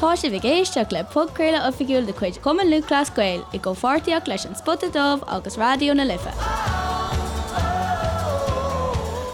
Tá sibh ag éisteacht le podchraoladh oifigiúil de chuid Chumann Lúthchleas Gael i gcomhpháirtíocht leis An Spota Dubh agus Raidió na Life.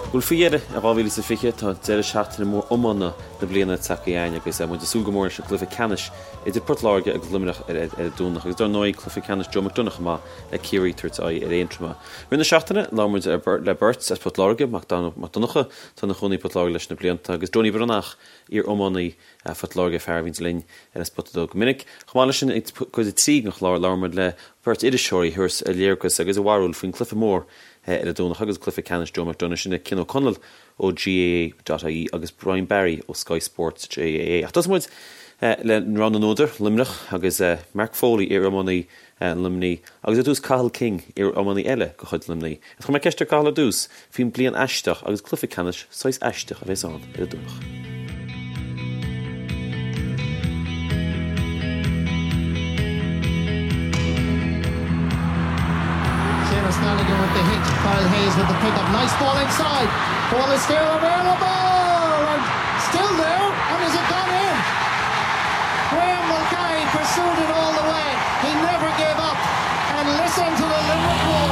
Bhuel, faoi dheireadh i 2020, tá deireadh seachtaine mór iomána na bliana tagtha chugainn agus muid ag súil go mór leis an gcluiche ceannais idir Port Láirge agus Luimneach ar an Domhnach agus dar ndóigh cluiche ceannais Joe McDonagh chomh maith le Ciarraí ag tabhairt aghaidh ar Aontroim. Rith na seachtaine, labhair muid le beirt as Port Láirge, Mac Donncha, atá ina chónaí i bPort Láirge leis na blianta, agus Donie Breathnach, iar-iománaí Phort Láirge, fear a bhíonns linn ar an Spota Dubh go minic. Chomh maith leis sin, i gcuid a 3 den chlár, labhair muid le beirt iriseoirí a thabharfas a léargas agus a bharúil faoin gcluiche mór ar an Domhnach agus cluiche ceannais Joe McDonagh, sin é Cian Ó Conaill ó GAA.ie agus Brian Barry ó Sky Sports GAA. Ach tosóidh muid le rogha na n-údar, Luimneach, agus Mark Foley, iar-iománaí Luimnigh, agus ar dtús Cathal King, iar-iománaí eile de chuid Luimnigh. Chuir mé ceist ar Cathal ar dtús faoin bliain aisteach agus cluiche ceannais saghas aisteach a bheas ann ar an Domhnach. Seamus Gallagher with the hit, Kyle Hayes with the pick up, nice ball inside, ball is still available and still there and is it gone in? Graham Mulcahy pursued it all the way, he never gave up and listen to the Limerick wall.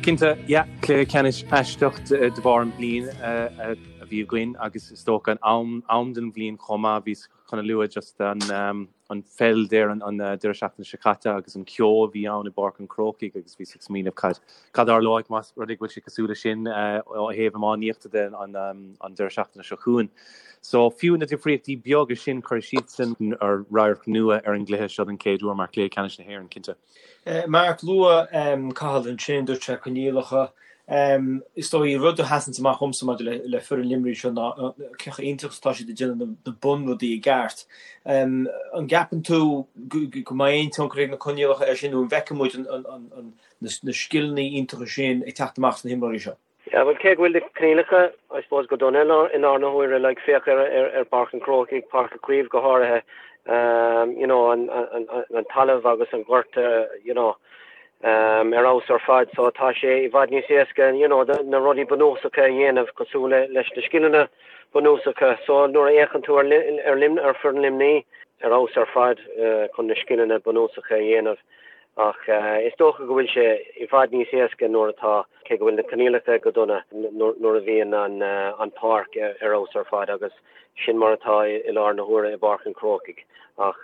Cinnte, yeah, cluiche ceannais aisteach de bharr an bliain a bhí againn agus is dócha an am den bhliain chomh maith. Bhíos chun a lua just an an pheil ar an deireadh seachtaine seo caite agus an ceo a bhí ann i bPáirc an Chrócaigh agus bhíos ag smaoineamh cad cad a tharlóidh más rud é go bhfuil sé cosúil leis sin ó thaobh iománaíochta de an an deireadh seachtaine seo chugainn. So fiú na difríochtaí beaga sin cuirfidh siadsan radharc nua ar an gcluiche seo den chéad uair mar chluiche ceannais na hÉireann, cinnte. Mark, luaigh Cathal ansin, dúirt sé coinníollacha. Is dóigh, rud a sheasanns amach dhomsa maidir le foireann Luimnigh seo ná cé chomh iontach is atá siad ag déanamh na bunrudaí i gceart. An gceapann tú go mbeidh aon tionchar ag na coinníollacha air sin nó an bhfeicfidh muid na scileanna iontacha sin ag teacht amach sna himreoirí seo? Yeah, bhuel, cé go bhfuil na coinníollacha, I suppose, go dona i lár na huaire, like, féach ar, ar, ar Pháirc an Chrócaigh, Páirc Uí Chaoimh go háirithe, um, you know, an, an, an talamh agus an gort, uh, you know, um, ar fheabhas ar fad, so tá sé i bhfad níos éasca, you know, na rudaí bunúsacha a dhéanamh cosúil le, leis na scileanna bunúsacha. So nuair a fhéachann tú ar, ar, Lim, ar foireann Luimnigh, ar fheabhas ar fad uh, chun na scileanna bunúsacha a dhéanamh. Ach is dócha go bhfuil sé i bhfad níos éasca nuair atá, cé go bhfuil na coinníollacha go dona, nuair a bhíonn an pháirc ar fheabhas ar fad agus sin mar atá i lár na huaire i bPáirc an Chrócaigh. Ach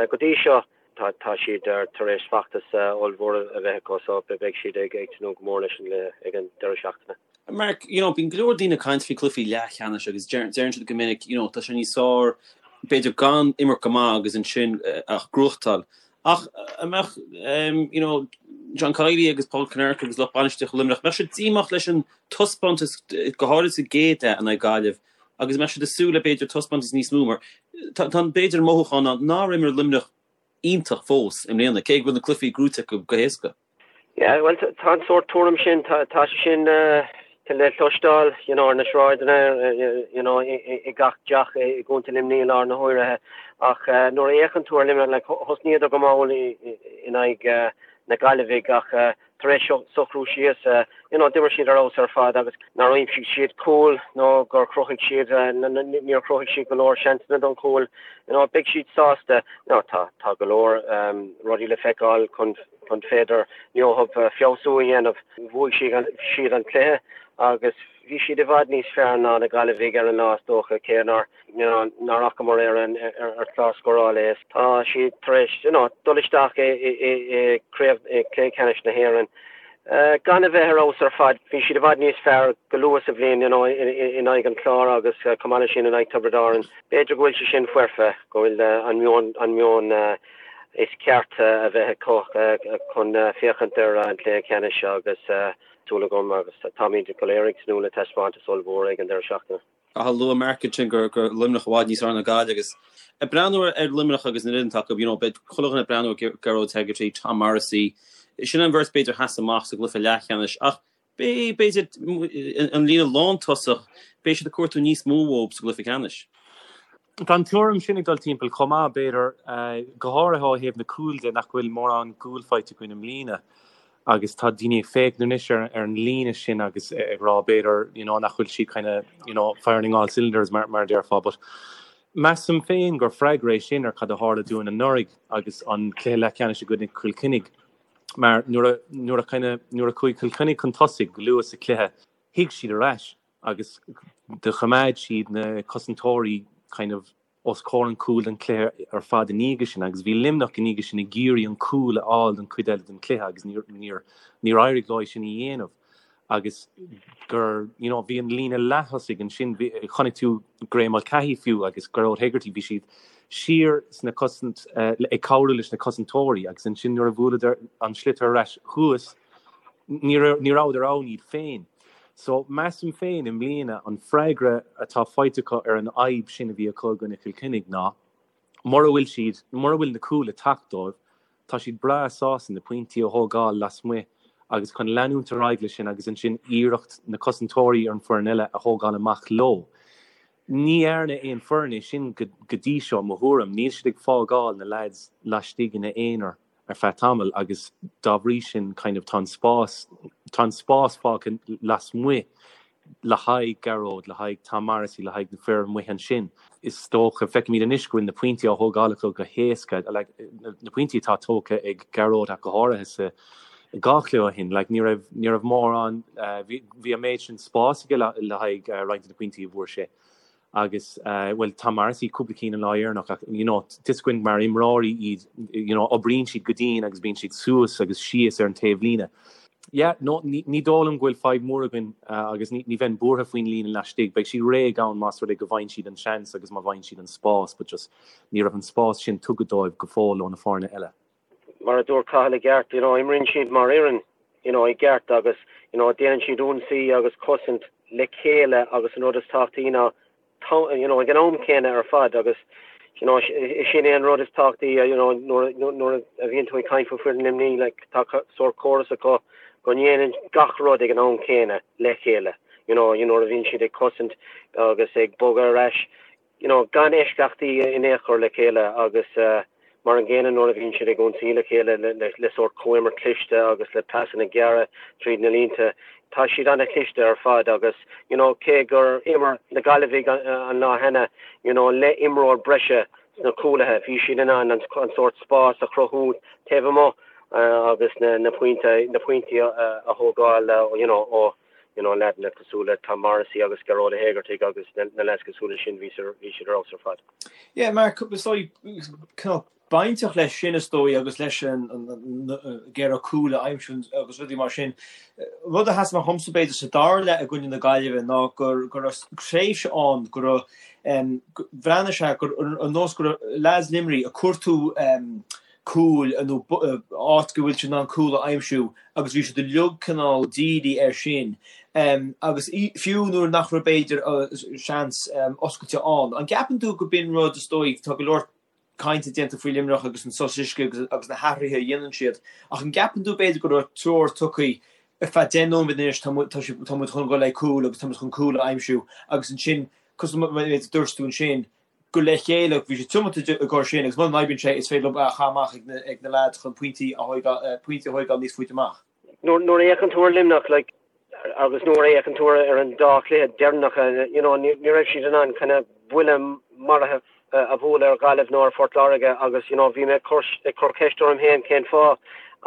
go dtí seo tá siad tar éis feachtas ollmhór a bheith acu so beidh siad ag tnúth go mór leis an gcluiche ag an deireadh seachtaine. Mark, you know, bíonn go leor daoine ag caint faoi cluichí leathcheannais agus deireann siad go minic, you know, tá sé níos fearr b'fhéidir gan imirt go maith agus ansin ach gnóthachtáil. Ach an mbeadh, you know, John Kiely agus Paul Kinnerk agus lucht bainistíochta Luimneach, mbeadh siad díomách leis an taispeántas, go háirid sa gcéad leath in aghaidh Gaillimh, agus mbeadh siad ag súil le b'fhéidir taispeántas níos mó mar tá b'fhéidir an mothúchán ann nár imir Luimneach iontach fós i mbliana, cé go bhfuil na cluichí gnóite acu go héasca. Yeah, bhuel, tá an sórt tuairim sin, tá sé sin le cloisteáil, you know, ar na sráideanna, you know, i gach teach i gContae Luimnigh i lár na huaire. Ach nuair a fhéachann tú ar Luimneach, like, thosnaíodar go mall in aghaidh na Gaillimhigh ach tar éis socrú síos, you know, d'imir siad ar fheabhas ar fad agus nár aimsigh siad cúl nó gur chruthaigh siad, níor chruthaigh siad go leor seansanna don chúl, you know, beidh siad sásta. Now, tá, tá go leor rudaí le feiceáil chun chun féidir leo feabhsú a dhéanamh. Bhuaigh siad an cluiche agus bhí siad i bhfad níos fearr ná na Gaillimhigh ar an lá is dócha, cé nár nár fhacamar ar an ar chlár scórála é. Tá siad tar éis you know dul isteach i i craobh i cluiche ceannais na hÉireann gan a bheith ar fheabhas ar fad. Bhí siad i bhfad níos fearr go luath sa bhliain you know in aghaidh an Chláir agus chomh maith leis sin in aghaidh Tiobraid Árann. B'fhéidir go bhfuil sé sin foirfe, go bhfuil an meon an meon is ceart a bheith acu chun féachaint ar an chluiche ceannais agus súil agam agus táimid go léir ag tnúth le taispeántas ollmhór ag an deireadh seachtaine. Ach luaigh Mark ansin gur Luimneach i bhfad níos fearr ná Gaillimh agus ag breathnú ar Luimneach agus an fhoireann atá acu, you know, beidh chuile dhuine ag breathnú ar Gearóid Hegarty, Tom Morrissey, sin an bheirt b'fhéidir a sheas amach sa gcluiche leathcheannais ach Beidh, b'fhéidir, an líne lántosach, beidh siad ag cuartú níos mó uathu sa gcluiche ceannais. Tá an tuairim sin ag dul timpeall chomh maith, b'fhéidir, go háirithe ó thaobh na cúil de, nach bhfuil mórán cúl faighte againn i mbliana. Agus tá daoine ag féachaint anois ar ar an líne sin agus ag rá b'fhéidir you know nach bhfuil siad kind of you know firing all cylinders mar mar a déarfá but measaim féin gur freagra é sin ar cad a tharla dúinn anuraidh agus an cluiche leathcheannais i gcoinne Chill Chainnigh mar nuair a nuair a kind of nuair a chuaigh Cill Chainnigh chun tosaigh go luath sa chluiche shuigh siad ar ais agus do choimeád siad na cosantóirí kind of os comhair an chúil don chluiche ar fad ina dhiaidh sin agus bhí Luimneach ina dhiaidh sin ag iarraidh an cúl a fháil don chuid eile den chluiche agus níor níor níor éirigh leo é sin a dhéanamh agus gur you know bhí an líne leath-thosaigh ansin bhí chonaic tú Graeme Mulcahy fiú agus Gearóid Hegarty bhí siad siar sna cosaint ag cabhrú leis na cosantóirí agus ansin nuair a bhuaileadar an sliotar ar ais thuas ní ní rabhadar ann iad féin. So, measaim féin i mbliana an freagra atá faighte acu ar an fhadhb sin a bhí acu i gcoinne Chill Chainnigh ná mura bhfuil siad, mura bhfuil na cúil ag teacht dóibh, tá siad breá sásta na pointí a thógáil lasmuigh agus chun leanúint ar aghaidh leis sin agus ansin iarracht na cosantóirí ar an foireann eile a thógáil amach leo. Ní dhearna aon foireann é sin go dtí seo, mo thuairim. Níl siad ag fágáil na leaids laistigh ina aonar. ar feadh tamaill agus dá bhrí sin kind of tá an spás, tá an spás fágtha lasmuigh le haghaidh Gearóid, le haghaidh Tom Morrissey, le haghaidh na fir amuigh ansin. Is dócha, feicimid anois go bhfuil na pointí á thógáil acu go héasca, like na pointí atá tógtha ag Gearóid ach go háirithe sa dhá chluiche ó shin, like ní raibh, ní raibh mórán, bhí, bhí an méid sin spáis aige le, le haghaidh roinnt de na pointí a bhfuair sé. agus bhuel Tom Morrissey cúpla cinn an lá dheireanach ach you know tá 'fhios againn mar imreoirí iad you know oibríonn siad go dian agus bíonn siad suas agus síos ar an taobhlíne. Yeah no ní ní dóigh liom go bhfuil fadhb mór againn agus ní ní bheinn buartha faoin líne laistigh, beidh siad réidh ann más rud é go bhfaigheann siad an seans agus má bhfaigheann siad an spás but just ní raibh an spás sin tugtha dóibh go fóill ó na foirne eile. Mar a dúirt Cathal i gceart, you know, imríonn siad mar fhoireann, you know, i gceart agus, you know, déanann siad ionsaí agus cosaint le chéile agus an rud is tábhachtaí ná, you know, ag an am céanna ar fad agus, you know, sin é an rud is tábhachtaí, you know, nuair, nuair a bhíonn tú ag caint faoi foireann Luimnigh, like, tá sórt córas acu go ndéanann gach rud ag an am céanna le chéile, you know, you know, nuair a bhíonn siad ag cosaint agus ag bogadh ar ais, you know, gan eisceachtaí in aon chor le chéile agus mar an gcéanna nuair a bhíonn siad ag ionsaí le chéile le sórt comhimirt cliste agus le pasanna gearra tríd na línte. Tá siad an-chliste ar fad agus, you know, cé gur imir na Gaillimhigh an lá cheana, you know, le imreoir breise sna cúlaithe, bhí siad in ann an sórt spás a chruthú taobh amuigh agus na pointí a thógáil, you know, ó you know, leaideanna cosúil le Tom Morrissey agus Gearóid Ó hÉigeartaigh agus na leaids cosúil leis sin, bhí siad ar fheabhas ar fad. Yeah, Mark, is dóigh, cineál bainteach leis sin is dóigh agus leis an iarraidh cúl a aimsiú agus rudaí mar sin. Rud a sheas amach dhomsa b'fhéidir sa dara leath i gcoinne na Gaillimhe ná go raibh tréimhse ann go raibh, bhreathnaigh sé gur ar nós go raibh leaids Luimnigh ag cuartú cúil nó áit go bhfuil siad in ann cúl a aimsiú agus bhí siad uilig cineál dírithe air sin agus fiú nuair nach raibh b'fhéidir seans oscailte ann. An gceapann tú go b'in rud is dóigh, tá go leor cainte déanta faoi Luimneach agus an sos uisce agus na hathruithe a dhéanann siad ach an gceapann tú b'fhéidir go raibh treoir tugtha ar feadh 10 nóiméad anois tá muid chun dul le cúl agus tá muid chun cúl a aimsiú agus ansin cosúil le mar a dúirt tú ansin go le chéile, bhí siad tiomanta i gcomhair sin agus muna n-oibríonn sé is féidir leo é a chaitheamh amach ag na leaids chun pointí a pointí a thóigeáil níos faide amach. Nuair a fhéachann tú ar Luimneach like agus nuair a fhéachann tú ar an dá chluiche deireanacha you know ní raibh siad in ann kind of buille maraithe a bhualadh ar Ghaillimh nó ar Phort Láirge agus you know bhí mé ag cur ceist orm féin cén fáth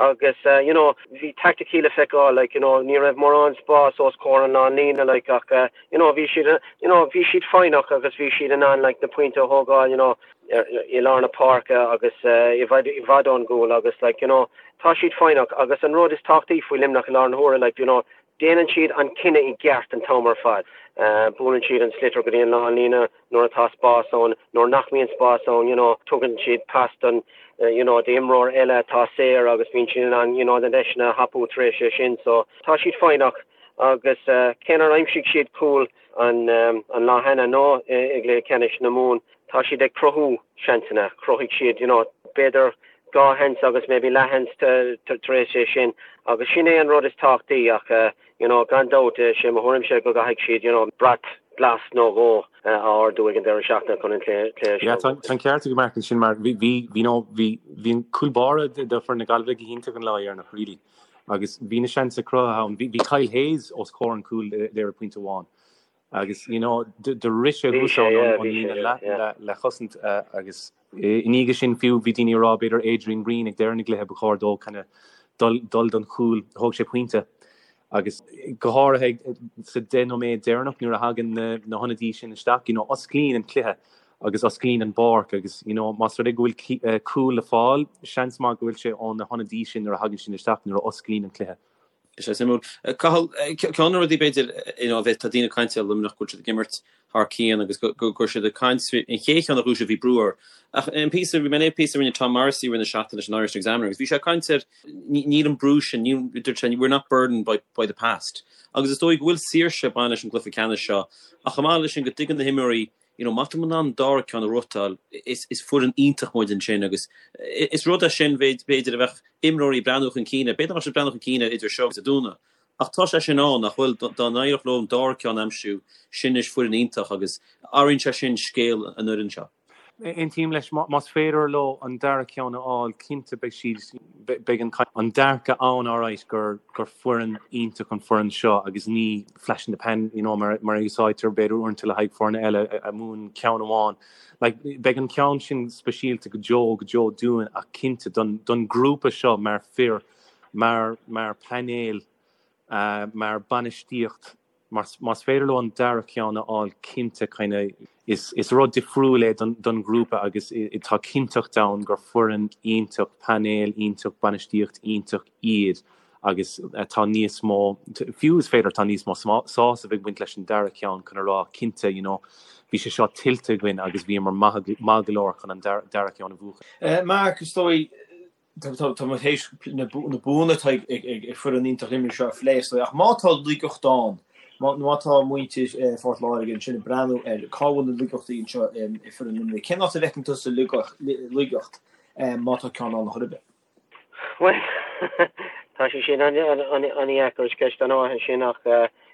agus you know bhí taicticí le feiceáil like you know ní raibh mórán spás os comhair an lánlíne like ach you know bhí siad you know bhí siad foighneach agus bhí siad in ann like na pointe a thógáil you know i lár na páirce agus i bhfad i bhfad ón gcúl agus like you know tá siad foighneach agus an rud is tábhachtaí faoi Luimneach i lár na huaire like you know déanann siad an cinneadh i gceart an t-am ar fad. Buaileann siad an sliotar go dtí an lánlíne nuair atá spás ann, nuair nach mbíonn spás ann you know tugann siad pas don you know d'imreoir eile atá saor agus bíonn siad in ann you know na deiseanna a thapú tar éis é sin so tá siad foighneach Agus cé nár aimsigh siad cúl an lá cheana nó i gcluiche ceannais na Mumhan, tá siad ag cruthú seansanna. Chruthaigh siad, you know, b'fhéidir dhá sheans agus maybe leathsheans tar éis é sin. Agus sin é an rud is tábhachtaí ach, you know, gan dabht, sé mo thuairimse go gcaithfidh siad, you know, brat glas nó dhó a ardú ag an deireadh seachtaine chun an cluiche seo. Yeah, tá an ceart ag Mark ansin mar bhí, bhí, you know, bhí, bhí an cúl báire do foireann na Gaillimhe go hiontach an lá dheireanach, really. Agus bhí na seansanna cruthaithe ann. Bhí Kyle Hayes os comhair an cúil there ag pointe amháin. Agus you know do rith sé thuas ann ón líne leathchosaint agus i ndiaidh sin fiú bhí daoine ag rá b'fhéidir Adrian Breen ag deireadh na gcluiche ba chóir dó kind of dul dul don chúl. Thóg sé pointe. Agus go háirithe sa 10 nóiméad deireanach nuair a thagann na na hionadaí sin isteach, you know, osclaíonn an cluiche agus osclaíonn an bpáirc agus, you know, más rud é go bhfuil cúl le fáil, seans maith go bhfuil sé ó na hionadaí sin nuair a thagann siad isteach nuair a osclaíonn an cluiche. Is é suimiúil. Cathal, ceann de na rudaí b'fhéidir, you know, tá daoine ag caint ar Luimneach go bhfuil siad ag imirt thar cionn agus go raibh siad ag caint an chéad cheann a ghnóthaigh siad bhí brú orthu. Ach an píosa, bhí mé ag léamh píosa a rinne Tom Morrissey i rith na seachtaine leis an Irish Examiner agus bhí sé ag caint ar níl an brú sin, níl, dúirt sé, we're not burdened by, by the past. Agus is dóigh go bhfuil saoirse ag baint leis an gcluiche ceannais seo ach chomh maith leis sin go dtuigeann na himreoirí you know, má tá muid in ann an dara ceann a ghnóthachtáil, is, is foireann iontach muid ansin agus is rud é sin b'fhéidir a bheadh imreoirí ag breathnú chun cinn air, b'fhéidir nach mbeadh siad ag breathnú chun cinn air idir seo agus Dé Domhnaigh ach tá sé sin ann nach bhfuil, dá n-éireodh leo an dara ceann a aimsiú, sin anois foireann iontach agus athraíonn sé sin scéal an fhoireann seo. Aontaím leis, más féidir leo an dara ceann a fháil, cinnte beidh siad, beidh an dearcadh ann alright gur gur foireann iontach an foireann seo agus ní flash in the pan, you know, mar mar a úsáidtear b'fhéidir uaireanta le haghaidh foirne eile a mbuann ceann amháin. Like, beidh an ceann sin speisialta go deo go deo dúinn ach cinnte don don grúpa seo mar fir, mar mar painéal, mar bainistíocht, Más féidir leo an dara ceann a fháil cinnte kind of is rud difriúil é don ghrúpa agus tá cinnteacht ann gur foireann iontach, painéal iontach, bainistíocht iontach iad agus tá níos mó, fiú is féidir tá níos mó sásamh ag baint leis an dara ceann chun a rá cinnte you know bhí sé seo tuillte againn agus bhíomar maith go leor chun an dara ceann a bhuachan. Mark, is dóigh Tá muid théis na buanna atá ag foireann iontach Luimnigh seo a phlé, is dóigh, ach má tá laigeacht ann, má tá muintir Phort Láirge ansin ag breathnú ar cá bhfuil na laigeachtaí anseo i foireann Luimnigh, cén áit a bhfeiceann tusa laigeacht má tá ceann ann chor ar bith? Bhuel, tá sé sin an-dheacair, is ceist an-mhaith é sin ach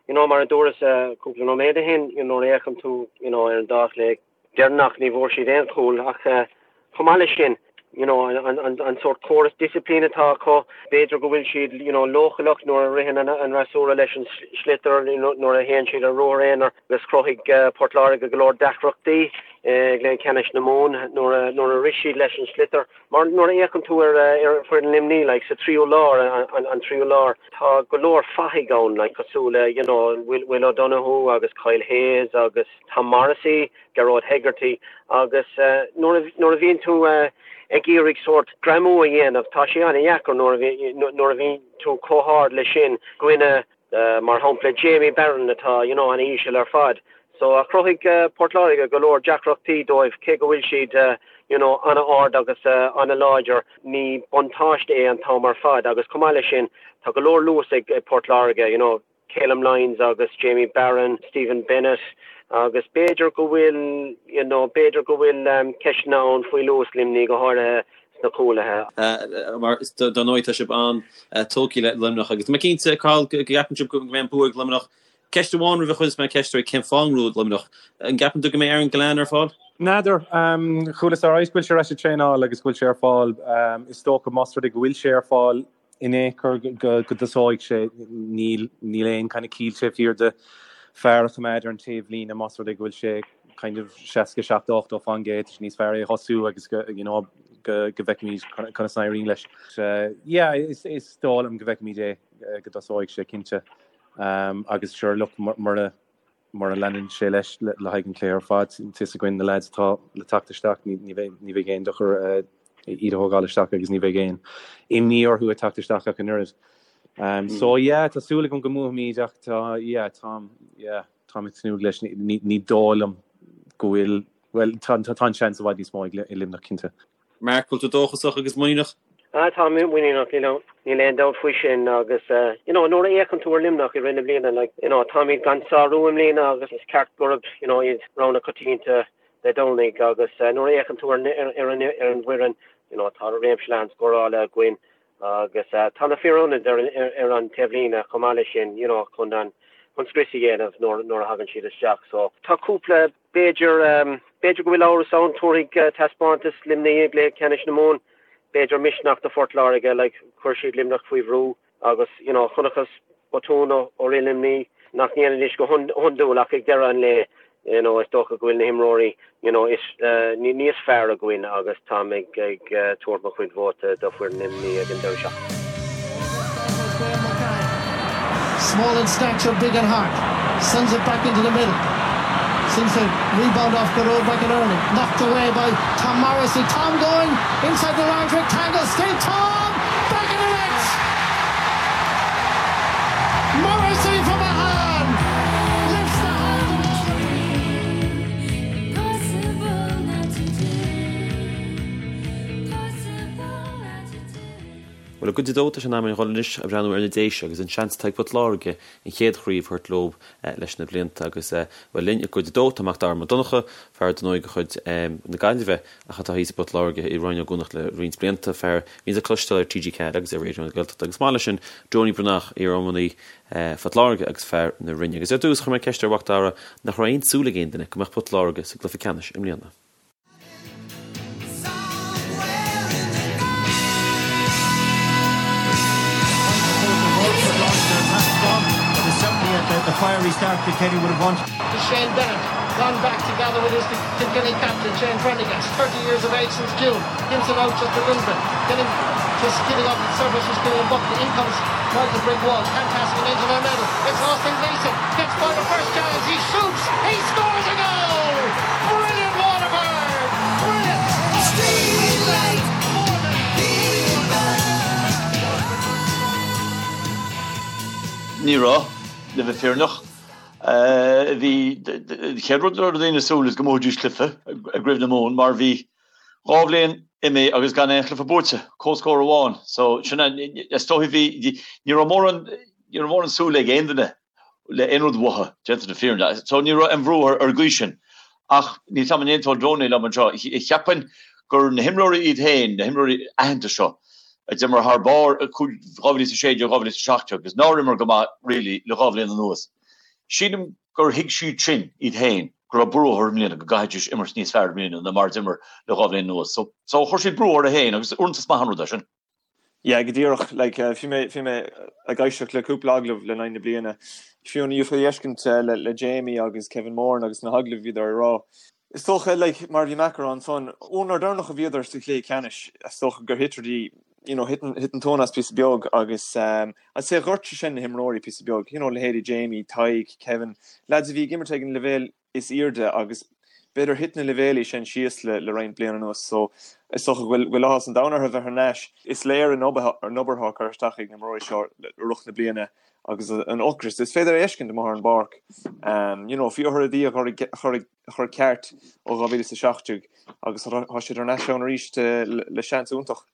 you know mar a dúras cúpla nóiméad ó shin, you know nuair a fhéachann tú you know ar an dá chluiche, deireanach ní bhfuair siad aon chúl ach chomh maith leis sin you know an sórt córas disciplín atá acu b'fhéidir go bhfuil siad you know leochaileach nuair a ritheann an fhreasúra leis an sliotar nuair a théann siad ar ruathar aonair agus chruthaigh Port Láirge go leor deacrachtaí i gcluiche ceannais na Mumhan nuair a nuair a rith siad leis an sliotar mar nuair a fhéachann tú ar ar foireann Luimní like sa tríú lár an tríú lár tá go leor fathaigh ann like cosúil le you know Will Will O'Donoghue agus Kyle Hayes agus Tom Morrissey, Gearóid Hegarty agus nuair a bhíonn tú ag iarraidh sórt greamú a dhéanamh, tá sé an-dheacair nuair a bhíonn tú chomh hard leis sin i gcoinne, mar shampla, Jamie Barron atá you know an-íseal ar fad. So chruthaigh Port Láirge go leor deacrachtaí dóibh cé go bhfuil siad you know an-ard agus an-láidir, ní buntáiste é an t-am ar fad agus chomh maith leis sin tá go leor luas ag Port Láirge, you know. Calum Lyons agus Jamie Barron, Stephen Bennett agus b'fhéidir go bhfuil you know b'fhéidir go bhfuil ceisteanna ann faoi luas Luimnigh, go háirithe sna cúlaithe. Mar dar ndóigh tá sibh an-tógtha le Luimneach agus tá mé cinnte, Cathal, go gceapann sibh go mbeidh an bua ag Luimneach. Ceist amháin roimh a chuirfeas mé ceist oraibh cén fáth an ngnóthóidh Luimneach? An gceapann tú go mbeidh Aaron Gillane ar fáil? N'fheadar. Chualas alright go bhfuil sé ar ais ag traenáil agus go bhfuil sé ar fáil. Is dócha más rud é go bhfuil sé ar fáil, in aon chor go dtosóidh sé, níl níl aon kind of ciall taobh thiar de fear a choimeád ar an taobhlíne más rud é go bhfuil sé kind of 67, 80 fán gcéad, tá sé níos fearr é a thosú agus go you know go go bhfeicfimid conas a éiríonn leis. Yeah, is is dóigh liom go bhfeicfimid é go dtosóidh sé cinnte. Um, agus sure look mura Mura leanann sé leis le haghaidh an chluiche ar fad, tá fhios againn na leaids atá le teacht isteach, ní bheidh aon dochar iad a thógáil isteach agus ní bheidh aon imní orthu ag teacht isteach ach an oiread. So yeah, tá súil agam go mbuafaimid ach tá, yeah, táim, yeah, táim ag tnúth leis. Ní dóigh liom go bhfuil, bhuel, tá an seans i bhfad níos mó ag Luimneach, cinnte. Mark, bhfuil tú dóchasach agus muiníneach? Ah, tá mé muiníneach, you know, níl aon dabht faoi sin agus eh, you know, nuair a fhéachann tú ar Luimneach i rith na bliana, like, you know, táimid gan sárú i mbliana agus is ceart gurb, you know, iad rogha na coitianta Dé Domhnaigh agus eh, nuair a fhéachann tú ar, ar, ar an, ar an bhfoireann, you know, tá réimse leathan scórála againn agus eh, tá na fir ionaid ar, ar, ar an taobhlíne chomh maith leis sin, you know, chun an, chun scrios a dhéanamh nuair, nuair a thagann siad isteach. So, tá cúpla B'fhéidir, b'fhéidir go bhfuil amhras ann, tabharfaidh taispeántas Luimnigh i gcluiche ceannais na Mumhan, b'fhéidir misneach do Phort Láirge, like, chuir siad Luimneach faoi bhrú. Agus, you know, chonacthas botún ó fhoireann Luimnigh nach ndéanfaidís go hiondúil ach ag deireadh an lae, you know, is dócha go bhfuil na himreoirí, you know, is, níos fearr againn agus táim ag, ag tabhairt mo chuid vóta do foireann Luimnigh ag an deireadh seachtaine. Small in stature, big in heart. Sends it back into the middle. Seems to rebound off Gearóid McInerney. Knocked away by Tom Morrissey. Tom going inside the large rectangle. Still Tom! Back of the net! Morrissey from Ahane lifts the hands of all the Bhuel, i gcuid a dó, tá sé in am againn dhul anois a bhreathnú ar na Déise agus an seans atá ag Port Láirge an chéad chraobh a thabhairt leo leis na blianta agus, bhuel, linn i gcuid a dó tá Mac Dara Mac Donncha, fear dar ndóigh de chuid na Gaillimhe ach atá thíos i bPort Láirge i Rinn Ó gCuanach le roinnt blianta, fear a bhíonns le cloisteáil ar TG4 agus ar Raidió na Gaeltachta agus chomh maith leis sin Donie Breathnach, iar-iománaí Phort Láirge agus fear na Rinne. Agus ar dtús chuir mé ceist ar Mhac Dara nach raibh aon tsúil ag aon duine go mbeadh Port Láirge sa gcluiche ceannais i mbliana. Shane Bennett gone back together with his Kilkenny captain Shane Prendergast, 30 years of age since June, gives it out just a little bit, getting just giving up the surface was Killian Buckley. In comes Michael Brigg Walsh, can't pass it into the middle. It's Austin Gleeson, gets by the first challenge, he shoots, he scores a goal! Brilliant Waterford! Brilliant! Ní raibh, le bheith fírinneach. Bhí, an chéad rud a raibh daoine ag súil is go mbuafaidís cluiche i gCraobh na Mumhan mar bhí 2 bhliain imithe agus gan aon chluiche buaite, comhscór amháin. So sin é, is dóigh bhí, ní raibh mórán, ní raibh mórán súil ag aon duine le aon rud uathu, déanta na fírinne. So ní raibh aon bhrú ar an gcaoi sin. Ach níl 's agam an aontódh Donie liom anseo. Cheapfainn gur na himreoirí iad féin, na himreoirí aitheanta seo, a d'imir thar barr i 2016, 2017 agus nár imir go maith really le 2 bhliain anuas. Sílim gur thuig siad sin iad féin go raibh brú orthu i mbliana, go gcaithfidís imirt níos fearr i mbliana ná mar a d'imir le 2 bhliain anuas. So so chuir siad brú orthu féin agus uaireanta is maith an rud é sin. Yeah, go díreach. Like, bhí mé, bhí mé ag éisteacht le cúpla agallamh le linn na bliana. Fiú an fhéadfaí a fheiscint le, le Jamie agus Kevin Moran agus na hagallaimh a bhíodar ag rá. Is dócha, like, mar a bhí Mac a rá ansan, ón uair deireanach a bhíodar sa chluiche ceannais, is dócha gur thit rudaí, you know, thit an, thit an tóin as píosa beag agus, um, I'd say ghortaigh sé sin na himreoirí píosa beag, you know, leithéidí Jamie, Tadhg, Kevin, lads a bhí ag imirt ag an leibhéal is airde agus b'fhéidir thit na leibhéalaí sin síos le le roinnt bliana anuas so is dócha go bhfuil go bhfuil áthas an domhain orthu bheith thar n-ais. Is léir an obair an obair atá curtha isteach ag na imreoirí seo i rith na bliana agus an ocras is féidir a fheiscint amuigh ar an bpáirc. You know, bhí orthu rudaí a chur a chur a chur ceart ó 2017 agus tá siad thar n-ais ann arís le le seans iontach.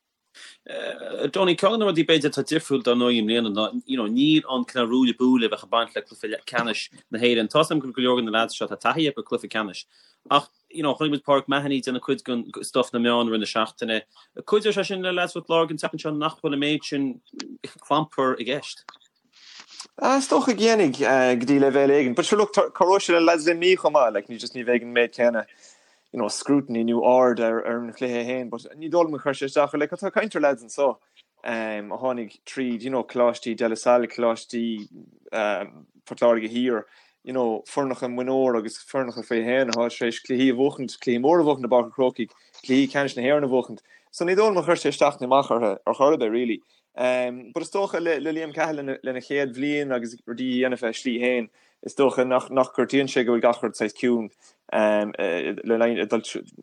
Donie, ceann de na rudaí b'fhéidir atá difriúil dar ndóigh i mbliana ná you know níl an cineál ruaille buaille a bheadh ag baint le cluiche ceannais na hÉireann. Tá's agam go bhfuil go leor de na lads seo tá taithí acu ar cluiche ceannais ach you know chonaic muid Pauric Mahony ag déanamh cuid den stuff sna meáin i rith na seachtaine. Cuideoidh sé sin le lads Phort Láirge an tseachtain seo nach bhfuil an méid sin clampar i gceist. Is dócha go ndéanfaidh go dtí leibhéal éigin. But sure look, cabhróidh sé le lads Luimnigh chomh maith, like ní just ní bheidh an méid céanna you know scrutiny nó aird ar ar an chluiche féin, but ní dóigh liom gur chuir sé isteach ar like tá caint ar lads anso um, a tháinig tríd you know coláistí De La Salle, coláistí um, Port Láirge Thiar, you know foirneacha mionúr agus foirneacha faoi haon atá tar éis cluichí a bhuachaint, cluichí móra a bhuachaint i bPáirc an Chrócaigh, cluichí ceannais na hÉireann a bhuachaint. So ní dóigh liom gur chuir sé isteach nó amach orthu ar chor ar bith really. But is dócha le Liam Cahill lena chéad bhliain agus rudaí a dhéanamh a shlí féin, is dócha nach gortaíonn sé go bhfuil gach rud saghas ciúin le linn dul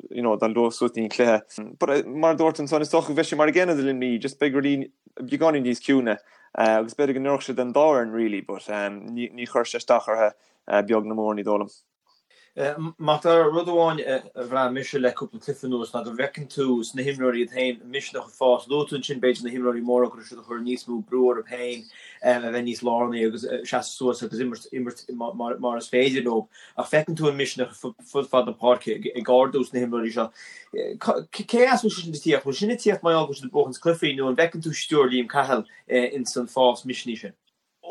you know dul suas don chluiche. But mar a dúirt ansan, is dócha go bheidh sé mar an gcéanna do Luimnigh, just beidh rudaí beagáinín níos ciúine agus b'fhéidir go n-oirfeadh sé don dá fhoireann really but ní chuirfidh sé isteach orthu beag ná mór, ní dóigh liom. Mac Dara, rud amháin a bhraith mise le cúpla cluiche anuas ná go bhfeiceann tú sna himreoirí iad féin misneach ag fás. Luaigh tú ansin b'fhéidir na himreoirí móra go raibh siad ag cur níos mó brú orthu féin a bheith níos lárnaí agus seasamh suas agus imirt imirt mar is féidir leo. Ach feiceann tú an misneach fud fad na páirce ag ardú sna himreoirí seo. Cé as a bhfuil sé sin ag tíocht? Bhfuil sin ag tíocht mar gheall go bhfuil siad ag buachaint cluichí nó an bhfeiceann tú stiúir Liam Cahill ins an fás misnigh sin?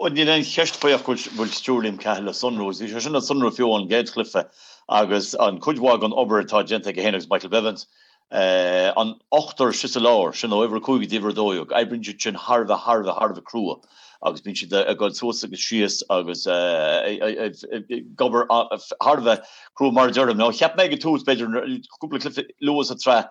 Níl aon cheist faoi ach go bhfuil stiúir Liam Cahill le sonrú agus bhí sé sin le sonrú fiú ón gcéad chluiche agus an cuid mhaith den obair atá déanta aige féin agus Michael Bevans. An ochtar istigh sa lár, sin ó uimhir a 5 go dtí uimhir a 12, oibríonn siad sin thar a bheith, thar a bheith, thar a bheith crua agus bíonn siad ag dul suas agus síos agus ag obair thar a bheith crua mar a deirim. Now cheap mé ag an tús, b'fhéidir cúpla cluiche luath sa tsraith,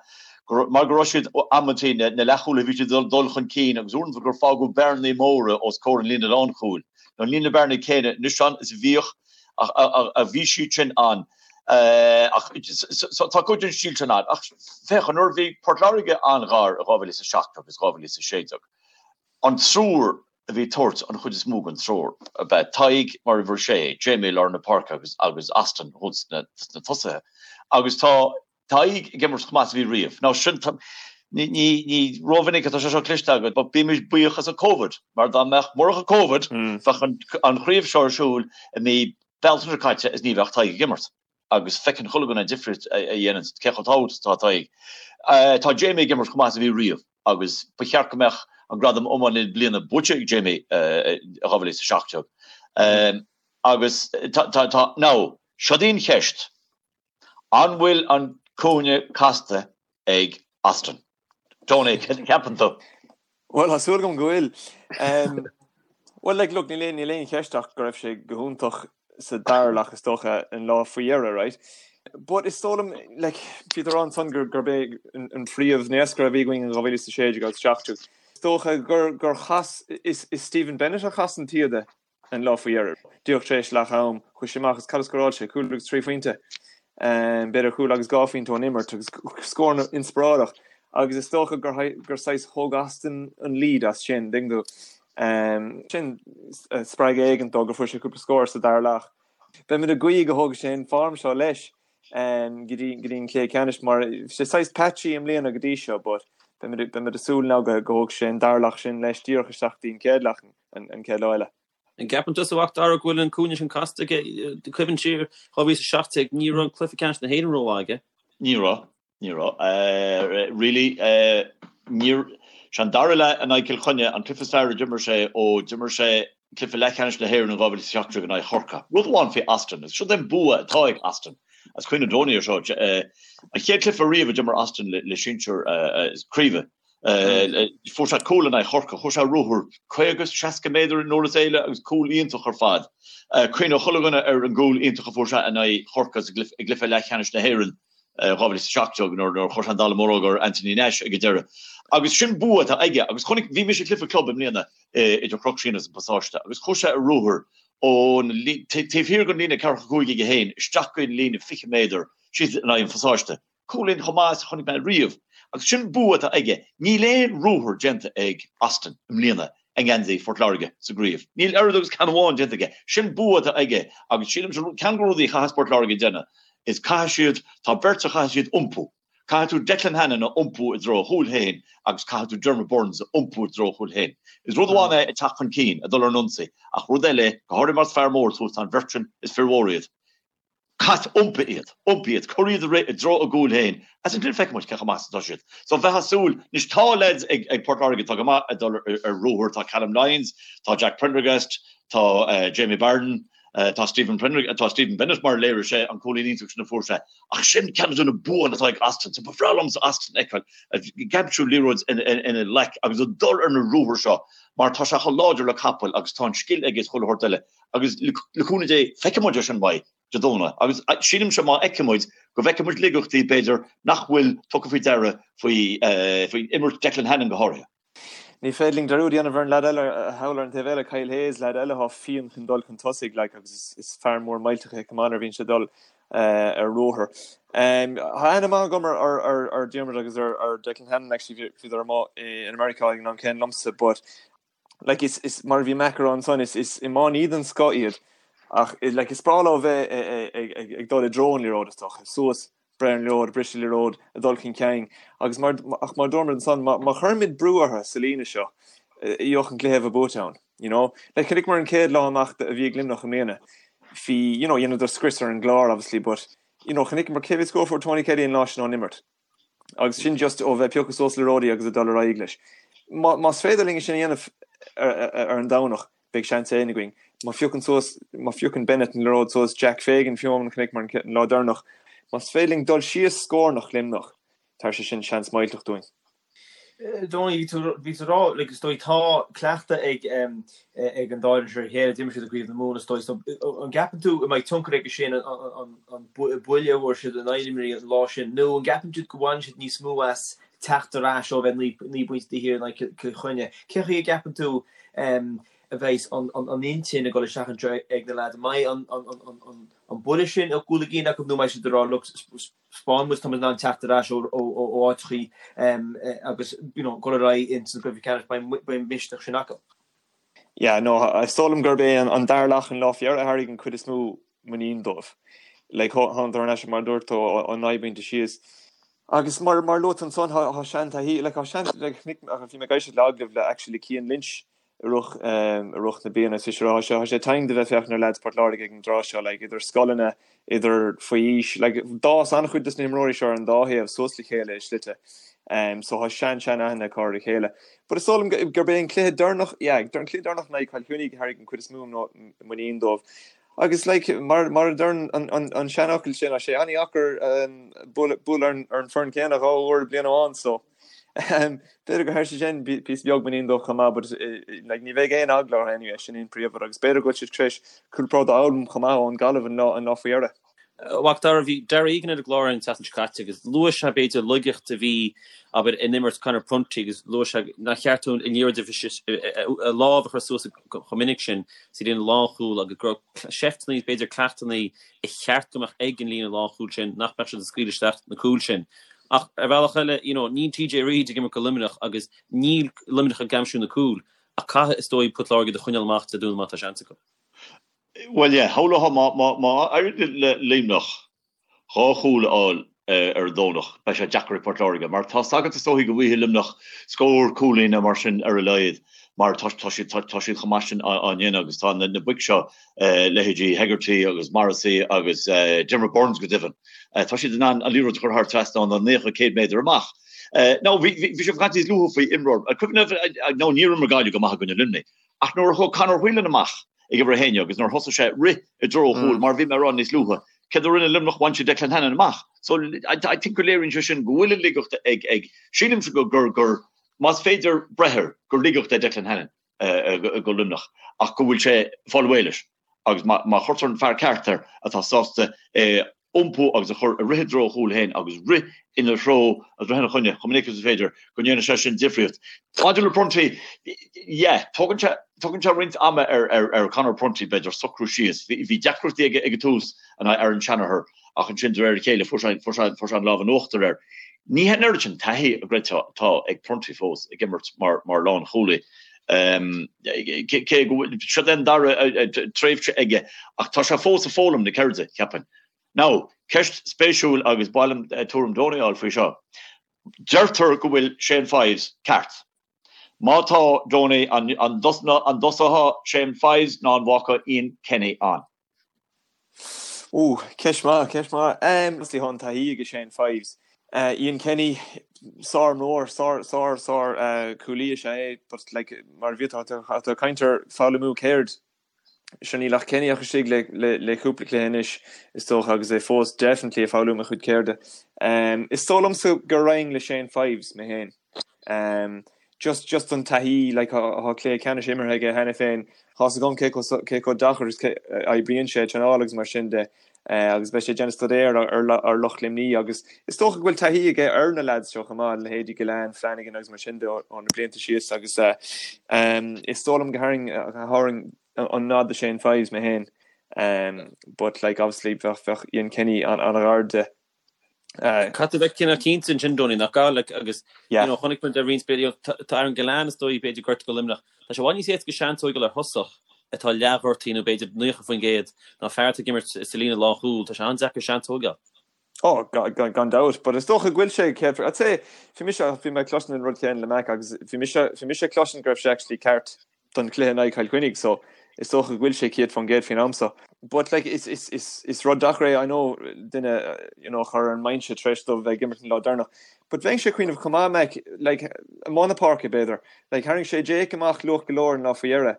mar go raibh siad amantaí na leathchúlaithe bhí siad ag dul chun cinn agus uaireanta gur fágadh bearnaí móra os comhair an líne lánchúil. Now níl na bearnaí céanna anois ann is a bhíodh ach bhí siad sin ann. Ach tá cuid den stíl sin ann. Ach féach, nuair a bhí Port Láirge an-ghar i 2007 agus 2016, an triúr a bhí ag tabhairt an chuid is mó den treoir ab ea Tadhg mar uimhir a sé, Jamie i lár na páirce agus agus Austin thuas sna tosaithe. Agus tá Tadhg ag imirt chomh maith is a bhí riamh. Now sin, ní, ní, ní rómhinic atá sé seo cloiste agat, but bímis buíoch as an Covid, mar dá mbeadh, murach an Covid, bheadh an, an chraobh seo ar siúl i mí Bealtaine seo caite is ní bheadh Tadhg ag imirt. Agus feiceann chuile dhuine an difríocht a dhéanann, cé chomh tábhachtach is atá Tadhg. Tá Jamie ag imirt chomh maith is a bhí riamh agus ba cheart go mbeadh an gradam Iománaí na Bliana buaite ag Jamie i 2017. Agus tá, tá, tá, now, seo í an cheist. An bhfuil an cúinne casta ag Austin? Tony, céard a cheapann tú? Bhuel, tá súil agam go bhfuil. Bhuel, like, look, níl aon, níl aon cheist ach go raibh sé go hiontach sa dara leath is dócha an lá faoi dheireadh, right? But is dóigh liom, like, bhí tú ag rá ansan gur, gurb é an phríomh-naoscaire a bhí againn in 2016 agus 17. Is dócha gur, gur chas, is, is Stephen Bennett a chas an taoide an lá faoi dheireadh. Díreach tar éis leath am, chuaigh sé amach agus cad a scóráil sé? Cúl agus 3 phointe. B'fhéidir cúl agus 2 phointe ón imirt agus scór inspioráideach. Agus is dócha gur gur saghas thóg Austin an lead as sin, an dtuigeann tú. Sin spreagadh éigin dó gur fuair sé cúpla scór sa dara leath. Beimid ag guí go thógfaidh sé an form seo leis go dtí go dtí an cluiche ceannais mar bhí sé saghas patchy i mbliana go dtí seo but beimid beimid ag súil now go go thógfaidh sé an dara leath sin leis díreach isteach go dtí an chéad leath an chéad lá eile. An gceapann tusa, a Mhac Dara, go bhfuil an cúinne sin casta aige? Cuimhnigh siar 2017, ní raibh an cluiche ceannais na hÉireann rómhaith aige. Ní raibh, ní raibh. Really, níor, sé an dara leath in aghaidh Cill Chainnigh an cluiche is fearr a d'imir sé ó d'imir sé cluiche leathcheannais na hÉireann in 2017 in aghaidh Chorcaí. Rud amháin faoi Austin, agus seo é an bua atá ag Austin, agus cuimhneoidh Tony ar seo, an chéad cluiche riamh a d'imir Austin le sinsir craoibhe, Fuair sé cúl in aghaidh Chorcaí, chuaigh sé ar ruathar 50, 60 méadar in uair is eile agus cúl iontach ar fad. Cuimhneoidh chuile dhuine ar an gcúl iontach a fuair sé in aghaidh Chorcaí sa i gcluiche leathcheannais na hÉireann 2017 nuair a chuir sé an dallamullóg ar Anthony Nash ag an deireadh. Agus sin bua atá aige agus chonaic, bhí mise ag cluiche club i mbliana idir Chnoc Síon agus an Pasáiste agus chuaigh sé ar ruathar ón taobh thiar den líne ceathracha cúig aige féin isteach go dtí an líne 20 méadar síos in aghaidh an Phasáiste. Cúilín chomh maith is a chonaic mé riamh. Agus sin bua atá aige. Níl aon ruathar déanta ag Austin i mbliana i ngeansaí Phort Láirge sa gcraobh. Níl oiread agus ceann amháin déanta aige. Sin bua atá aige agus sílim ceann de na rudaí a chaithfeas Port Láirge déanamh is caithfidh siad, tá beirt a chaithfidh siad iompú. Caithfidh tú Declan Hannon a iompú i dtreo a chúil féin agus caithfidh tú Diarmuid Byrnes a iompú i dtreo a chúil féin. Is rud amháin é ag teacht chun cinn, ag dul ar an ionsaí, ach rud eile, go háirithe más fear mór tú, tá an bheirt sin, is fir mhóra iad. Caith, iompaigh iad, iompaigh iad, cuir iad ag rith i dtreo a gcúil féin, agus ansin feicfidh muid cé chomh maith is atá siad. So bheifeá ag súil, anois tá leaids ag ag Port Láirge atá go maith ag dul ar ruathar, tá Callum Lyons, tá Jack Prendergast, tá Jamie Barron, tá Stephen Prendergast, tá Stephen Bennett mar a léirigh sé an cúilín iontach sin a fuair sé. Ach sin ceann de na buanna atá ag Austin, so ba bhreá liomsa Austin a fheiceáil ag aimsiú liathróid ina ghlac agus ag dul ar na ruathair seo mar tá sé chomh láidir le capall agus tá an scil aige is chuile shórt eile. Agus le cúnamh Dé, feicfidh muid é sin uaidh Dé Domhnaigh. Agus sílimse má fheiceann muid, go bhfeicfidh muid laigeachtaí, b'fhéidir, nach bhfuil tugtha faoi deara faoi faoi imirt Declan Hannon go háirithe. Ní féidir linn dearúd a dhéanamh ar an leaid eile thall ar an taobh eile, Kyle Hayes, leaid eile atá fiáin chun dul chun tosaigh, like, agus is fear mór millteach é chomh maith nuair a bhíonn sé ag dul ar ruathar. Tá aithne maith agam ar Diarmuid agus ar Declan Hannon, actually, bhíodar amuigh in America ag an am céanna liomsa, but like is is mar a bhí Mac ag rá ansan is is iománaí den scoth iad ach like is breá leo bheith ag ag ag dul i dtreo an liathróid is dócha suas breith ar an liathróid briseadh liathróid ag dul chun cinn agus mar ach mar dúirt muid ansan má má chuirimid brú orthu sa líne seo gheobhadh an cluiche a bheith buaite ann you know like chonaiceamar an chéad lá amach a bhí ag Luimneach i mbliana bhí you know dhéanadar scrios ar an gClár obviously but you know chonaiceamar cé mhéad scór a fuair Tony Kelly an lá sin ón imirt Agus sin just ó bheith ag piocadh suas liathróidí agus ag dul ar aghaidh leis. Más féidir linn é sin a dhéanamh ar an Domhnach, beidh seans éigin againn. Má phiocann suas, má phiocann Bennett an liathróid suas, Jack Fagan fiú amháin chonaiceamar an lá deireanach, más féidir linn dul síos scórnach Luimneach, Tabharfaidh sé sin seans millteach dúinn. Donie, bhí tú bhí tú ag rá like is dóigh tá cleachtadh ag ag an dá fhoireann seo ar a chéile, d'imir siad i gCraobh na Mumhan is dóigh so an gceapann tú an mbeidh tionchar aige sin an an an buille a fuair siad in aghaidh Luimnigh an lá sin nó an gceapann tú go bhaineann siad níos mó as teacht ar ais ó bheith 9 bpointe taobh thiar in aghaidh Cill Chainnigh? Cén chaoi a gceapann tú a bheidh an an intinn ag dul isteach anseo ag na leaids? An mbeidh an an an an buille sin ag dul i gcion acu nó an mbeidh siad ag rá look 'spáin muid tá muid in ann teacht ar ais ó áiteachaí agus you know dul ar aghaidh ins an gcluiche ceannais, beidh an misneach sin acu. Yeah, no, is dóigh liom gurb é an dara leath an lá faoi dheireadh a tharraing an cuid is mó muinín dóibh. Like, thángadar thar n-ais mar a dúirt tú ó 9 bpointe síos. Agus mar mar luaigh tú ansan, tá sean-taithí, like, tá sean, like, bhí mé ag éisteacht le agallamh le actually Cian Lynch i rith i rith na bliana is tá sé tá sé tinn de bheith féachaint ar leaids Port Láirge ag an dtráth seo like idir scoileanna idir faoi aois like d'fhás an-chuid des na himreoirí seo ar an dá thaobh suas le chéile i slite um so tá sean sean aithne acu ar a chéile but is dóigh liom gurb é an cluiche deireanach yeah an cluiche deireanach in aghaidh Chill Chainnigh a tharraing an cuid is mó muinín dóibh agus like mar mar a deir an an an seanfhocal sin tá sé an-dheacair um bualadh bualadh ar an ar an foireann céanna dhá uair i bliain amháin so B'fhéidir gur thabhair sé sin píosa beag muinín dóibh chomh maith but like ní bheidh aon eagla orthu anyway, sin an príomhrud agus b'fhéidir go bhfuil siad tar éis cúpla rud a fhoghlaim chomh maith ón Gaillimh an lá an lá faoi dheireadh. A Mhac Dara, bhí Darragh Egan ar an gclár an tseachtain seo caite agus luaigh sé b'fhéidir laigeacht a bhí abair in imirt Conor Prunty agus luaigh sé nár cheart dó an liathróid a lámh a chur suas chomh minic sin sa líne lánchúil agus go raibh seifteanna b'fhéidir cleachtanna a cheart go mbeadh ag an líne lánchúil sin nach mbeadh siad ag scaoileadh isteach na cúil sin. Ach ar bhealach eile, you know, níl TJ Reid ag imirt do Luimneach agus níl Luimneach ag aimsiú na cúil, ach caithfidh, is dóigh, Port Láirge iad a choinneáil amach Dé Domhnaigh má tá seans acu. Bhuel, yeah, shamhlófá má, má, má éiríonn le Luimneach dhá chúl a fháil ar an Domhnach, beidh sé deacair ag Port Láirge, mar tá's agat is dóichí go bhfaighidh Luimneach scór cúilín nó mar sin ar a laghad, mar tá, tá siad, tá, tá siad chomh maith sin á, á ndéanamh agus tá na, na boic seo, leithéidí Hegarty agus Morrissey agus Diarmuid Byrnes go deimhin, Tá siad in ann an liathróid a chur thar trasnán ó 90, 100 méadar amach. Now, bhí sibh ag caint níos luaithe faoi imreoir, cuimhin libh, nó níor imir Gaillimh go maith i gcoinne Luimnigh, ach nuair a chuaigh Conor Whelan amach ag uimhir a haon agus nuair a thosaigh sé rith i dtreo an chúil, mar a bhí mé ag rá níos luaithe, céard a rinne Luimneach? Bhain siad Declan Hannon amach. So, I think go léiríonn sé sin go bhfuil an laigeacht ag, ag, sílimse go, gur, gur, más féidir breith air, gur laigeacht é Declan Hannon do Luimneach ach go bhfuil sé ag fáil réidh leis. agus má chuirtear an fear ceart air atá sásta é a iompú agus a chur ag rith i dtreo a chúil féin agus rith ina threo agus rith ina choinne chomh minic agus is féidir, go ndéanfaidh sé sin difríocht. Maidir le Prunty, yeah, tógann sé, tógann sé roinnt ama ar, ar, ar Conor Prunty, b'fhéidir, socrú síos. Bhí, bhí deacrachtaí aige ag an tús in aghaidh Aaron Shanagher ach ansin de réir a chéile fuair sé, fuair sé, fuair sé an lámh in uachtar air. Ní hé an oiread sin taithí a gcreidfeá atá ag Prunty fós ag imirt mar, mar lánchúlaí. Cé go bhfuil, seo é an dara tréimhse aige ach tá sé fós ag foghlaim na ceirde, cheapfainn. Now, ceist spéisiúil agus ba mhaith liom tuairim Donie a fháil faoi seo. Deirtear go bhfuil Shane Fives ceart. Má tá, Donie, an dtosódh Shane Fives nó an bhfágfá Ian Kenny ann? Ooh, ceist maith, ceist maith. Obviously tá an taithí ag Shane Fives. Ian Kenny, sár-imreoir, sár, sár, sár cúlaí is ea é, but like, mar a bhí tú, tá tú ag caint ar foghlaimiú ceird. Sure níl ach Kenny ach istigh le, le, le cúpla cluiche anois, is dócha, agus é fós definitely ag foghlaim a chuid ceirde. Is dóigh liomsa go raghainn le Shane Fives, mé féin. Just just an taithí like tá cluiche ceannais imeartha aige cheana féin, tá's agam cé chomh cé chomh deacair is a oibríonn sé traenáil agus mar sin de agus beidh sé ag déanamh staidéir ar ar lucht Luimní agus is dócha go bhfuil taithí aige ar na lads seo chomh maith, leithéidí Gillane, Flanagan agus mar sin de ó na blianta síos agus is dóigh liom go thabharfainn thabharfainn an nod do Shane Fives mé féin but like obviously bheadh bheadh Ian Kenny an-ghar de. Caithfidh tú a bheith cineál cinnte ansin, Donie, nach gcaithfidh, agus you know, chonaic muid ar roinnt, you know, tá Aaron Gillane is dóigh b'fhéidir gortaithe do Luimneach. Tá sé i bhfad níos éasca seans a fháil ar thosach atá leathghortaithe nó b'fhéidir 90% ná fear atá ag imirt sa líne lánchúil. Tá sé an-deacair seans a thógáil. Oh, gan, gan dabht, but is dócha go bhfuil sé céad, I'd say, bhí mise, bhí mé ag cloisint an rud céanna le Mac agus bhí mise, bhí mise ag cloisint go raibh sé actually ceart don chluiche in aghaidh Chill Chainnigh so is dócha go bhfuil sé 100% faoin am so. But like is is is is rud deacair é I know duine you know a chur ar an mbinse tar éis dóibh bheith ag imirt an lá deireanach. But bheinnse ag cuimhneamh chomh maith Mac like amuigh na páirce b'fhéidir. Like tharraing sé Jake amach luath go leor an lá faoi dheireadh.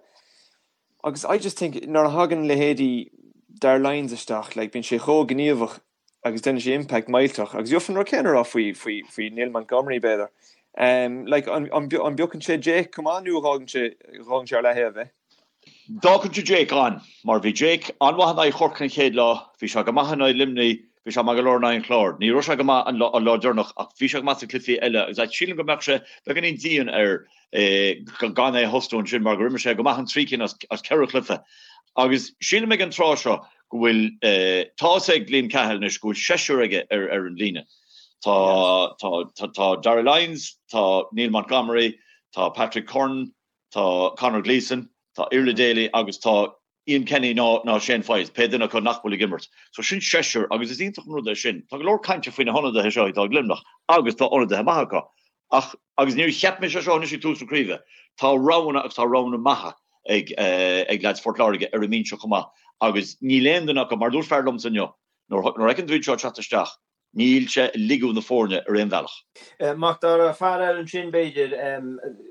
Agus I just think nuair a thagann leithéidí Dar Lyons isteach like bíonn sé chomh gníomhach. Agus déanann sé impact millteach. Agus gheofa an rud céanna a rá faoi, faoi, faoi Neil Montgomery, b'fhéidir. Like, an, an, an bpiocann sé Jake chomh maith nó an bhfágann sé, bhfágann sé ar leathaobh é? D'fhágfainnse Jake ann, mar bhí Jake an-mhaith in aghaidh Chorcaí an chéad lá, bhí sé go maith in aghaidh Luimnigh, bhí sé maith go leor in aghaidh an Chláir. Ní raibh sé go maith an lá, an lá deireanach ach bhí sé go maith sna cluichí eile agus sílim go mbeadh sé beagáinín dian air gan é a thosnú ansin mar gur imir sé go maith an trí cinn as ceithre chluiche. Agus sílim ag an tráth seo go bhfuil, tá a fhios ag Liam Cahill anois go bhfuil seisear aige ar ar an líne. Tá tá tá Darragh Lyons, tá Neil Montgomery, tá Patrick Curran, tá Conor Gleeson, tá Iarla Daly agus tá Ian Kenny ná ná Shane Foyes, pé duine acu nach bhfuil ag imirt. So sin seisear agus is iontach an rud é sin. Tá go leor cainte faoi na hionadaithe seo atá ag Luimneach agus tá ionadaithe maithe acu. Ach, agus níor cheap mise seo anois ag tús na craoibhe, tá roghanna agus tá roghanna maithe ag ag leaids Phort Láirge ar an mbinse chomh maith agus níl aon duine acu, mar a dúirt fear liomsa inniu, nuair a fheiceann tú iad seo ag teacht isteach, níl sé ag ligeadh na foirne ar aon bhealach. Mac Dara, fear eile ansin b'fhéidir,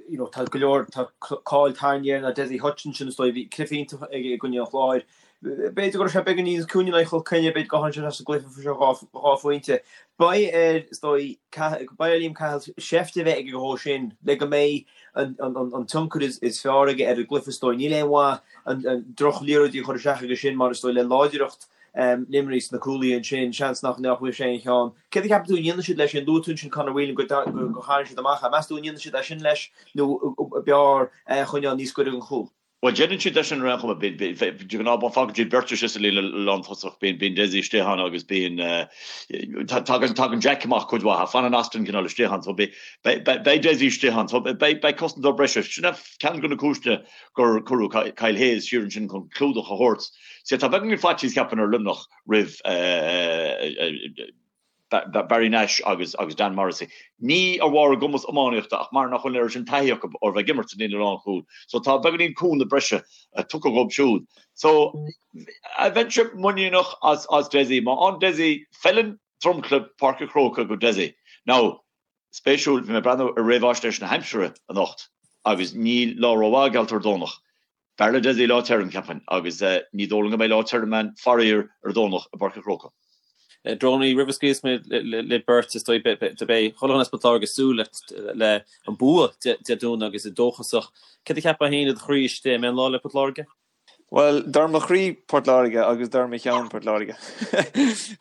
you know, tá go leor, tá cáil tarraingthe air ná Dessie Hutchinson is dóigh, bhí cluiche iontach aige i gcoinne an Chláir. B'fhéidir go raibh sé beagán níos ciúine in aghaidh Chill Chainnigh, b'fhéidir gur tháinig sé sa gcluiche fuair sé 2 phointe. Beidh air, is dóigh, beidh ar Liam Cahill seift a bheith aige dhó sin le go mbeidh an tionchar is fearr aige ar an gcluiche, is dóigh. Níl aon mhaith an droch-liathróidí a chur isteach aige sin mar is dóigh le láidreacht Luimnigh sna cúlaithe ansin, seans nach bhfuil sé aon cheann. Céard a cheapann tú a ndéanfaidh siad leis sin? Luaigh tú ansin Conor Whelan go tharraing siad amach é. Meas tú an ndéanfaidh siad é sin leis nó b'fhearr é a choinneáil níos gaire don chúl? Bhuel, déanann siad é sin ar aon chuma. De ghnáth, fágann siad beirt istigh sa líne lántosach, bíonn Dessie istigh ann agus bíonn, tagann Jack amach cuid mhaith, fanann Austin cineál istigh ann. So beidh Dessie istigh ann. So beidh cosantóir breise. Sin é ceann de na cúiseanna gur cuireadh Kyle Hayes siar ansin chun clúdach a thabhairt. Sea, tá beagáinín faitíos, ceapaim, ar Luimneach roimh. Barry Nash agus Dan Morrissey. Ní ar bharr a gcumas iománaíochta ach mar nach bhfuil an oiread sin taithí acu ar bheith ag imirt sa líne lánchúil. So tá beagáinín cúnamh breise tugtha dhóibh siúd. So bheinnse muiníneach as Dessie. Má fhaigheann Dessie, feileann dromchla Páirc an Chrócaigh go Dessie. Now, spéisiúil, bhí mé ag breathnú ar réamhaisnéis na haimsire anocht agus níl lá rómhaith geallta ar Domhnach. B'fhearr le Dessie lá tirim, cheapfainn, agus ní dóigh liom go mbeidh lá tirim ann, faraor, ar an Domhnach i bPáirc an Chrócaigh. Drónaí, roimh a scaoilfeas mé libh beirt, is dóigh, beidh chuile dhuine as Port Láirge ag súil le an bua Dé Domhnaigh agus iad dóchasach. Céard a cheapfá féin i do chroí istigh, an mbeidh an lá le Port Láirge? Bhuel, dar mo chroí Port Láirge agus dar mo cheann Port Láirge.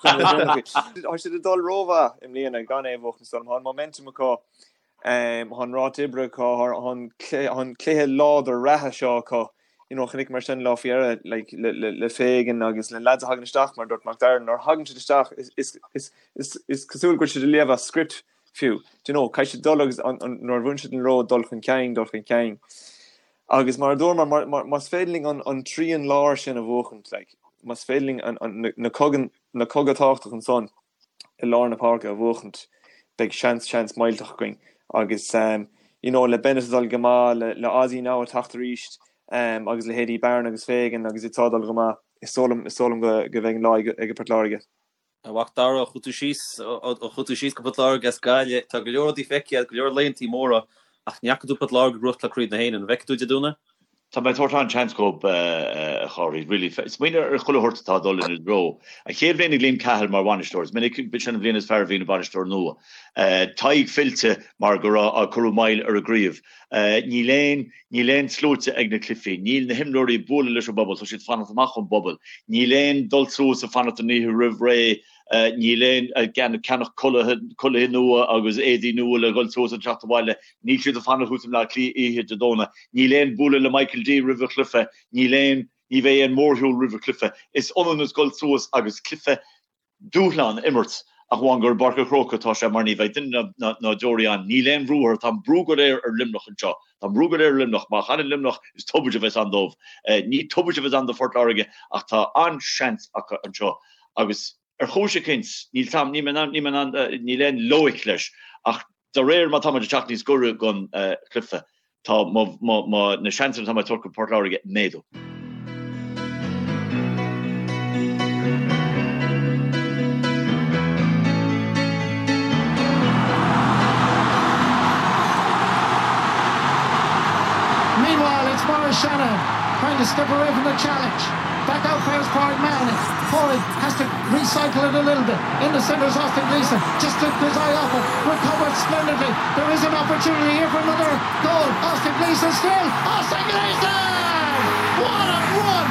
Tá siad ag dul rómhaith i mbliana gan é a bhuachan, is dóigh liom. Tá an momentum acu. Tá an ráta oibre acu, tá an cluiche láidir reatha seo acu. You know, chonaiceamar sin lá faoi dheireadh like, le, le, le Fagan agus le lads a thagann isteach mar dúirt Mac Dara, nuair a thagann siad isteach is, is, is, is, is cosúil go bhfuil siad ag léamh as script fiú. Do you know, caithfidh siad dul agus an, an, nuair a bhuann siad an liathróid dul chun cinn, dul chun cinn. Agus mar a dúramar, mar, mar, más féidir linn an, an trian láir sin a bhuachaint, like, más féidir linn an, an, na, na cogan, na coga tábhachtach ansan, i lár na páirce a bhuachaint, beidh seans, seans millteach againn. Agus you know le Bennett ag dul go maith, le le Ozzy now ag teacht arís agus leithéidí Barron agus Fagan agus iad seo ag dul go maith, is dóigh liom, is dóigh liom go go mbeidh an lá ag ag Port Láirge. A Mhac Dara, chuaigh tú síos, chuaigh tú síos go Port Láirge as Gaillimh, tá go leor rudaí feicthe agat, go leor laethantaí móra, ach ní fhaca tú Port Láirge ag gnóthachtáil Craobh na hÉireann. An bhfeicfidh tú Dé Domhnaigh? Tá mé ag tabhairt an-seans dhóibh, a Chárthaigh, really. Smaoinigh ar chuile shórt atá ag dul ina dtreo. An chéad bhliain ag Liam Cahill mar bhainisteoir, is minic sin an bhliain is fearr a bhíonn ag bainisteoir nua. Tadhg fillte mar go raibh, cuireadh moill ar an gcraobh. Níl aon, níl aon sluaite ag na cluichí. Níl na himreoirí ag bualadh leis an bpobal, tá siad ag fanacht amach ón bpobal. Níl aon dul suas ag fanacht an oíche roimh ré. Níl aon ceannach culaithe nua agus éadaí nua le dhul suas ag teacht abhaile. Níl siad ag fanacht thuas i mBleá Cliath oíche Dé Domhnaigh. Níl aon bualadh le Michael D roimh an chluiche. Níl aon, ní bheidh aon mhórshiúl roimh an chluiche. Is ionann is dul suas agus cluiche dúshlán a imirt ach amháin gur i bPáirc an Chrócaigh atá sé mar ní bheidh duine ná deoraí ann. Níl aon bhrú orthu. Tá an brú go léir ar Luimneach anseo. Tá an brú go léir ar Luimneach. Má chailleann Luimneach is tubaiste a bheas ann dóibh. Ní tubaiste a bheas ann do Phort Láirge ach tá an-seans acu anseo agus ar chúis eicínt, níl 'sam, níl mé in ann, níl mé in ann, níl aon loighic leis ach de réir mar tá muid ag teacht níos gaire don chluiche, tá mo, mo, mo, na seansanna atá mé ag tabhairt do Phort Láirge ag méadú. Meanwhile, it's Maurice Shanahan trying to step away from the challenge. Back out fares Pádraig Mahony. Pádraig has to recycle it a little bit. In the centre is Austin Gleeson. Just took his eye off it. Recovered splendidly. There is an opportunity here for another goal. Austin Gleeson still. Austin Gleeson! What a run!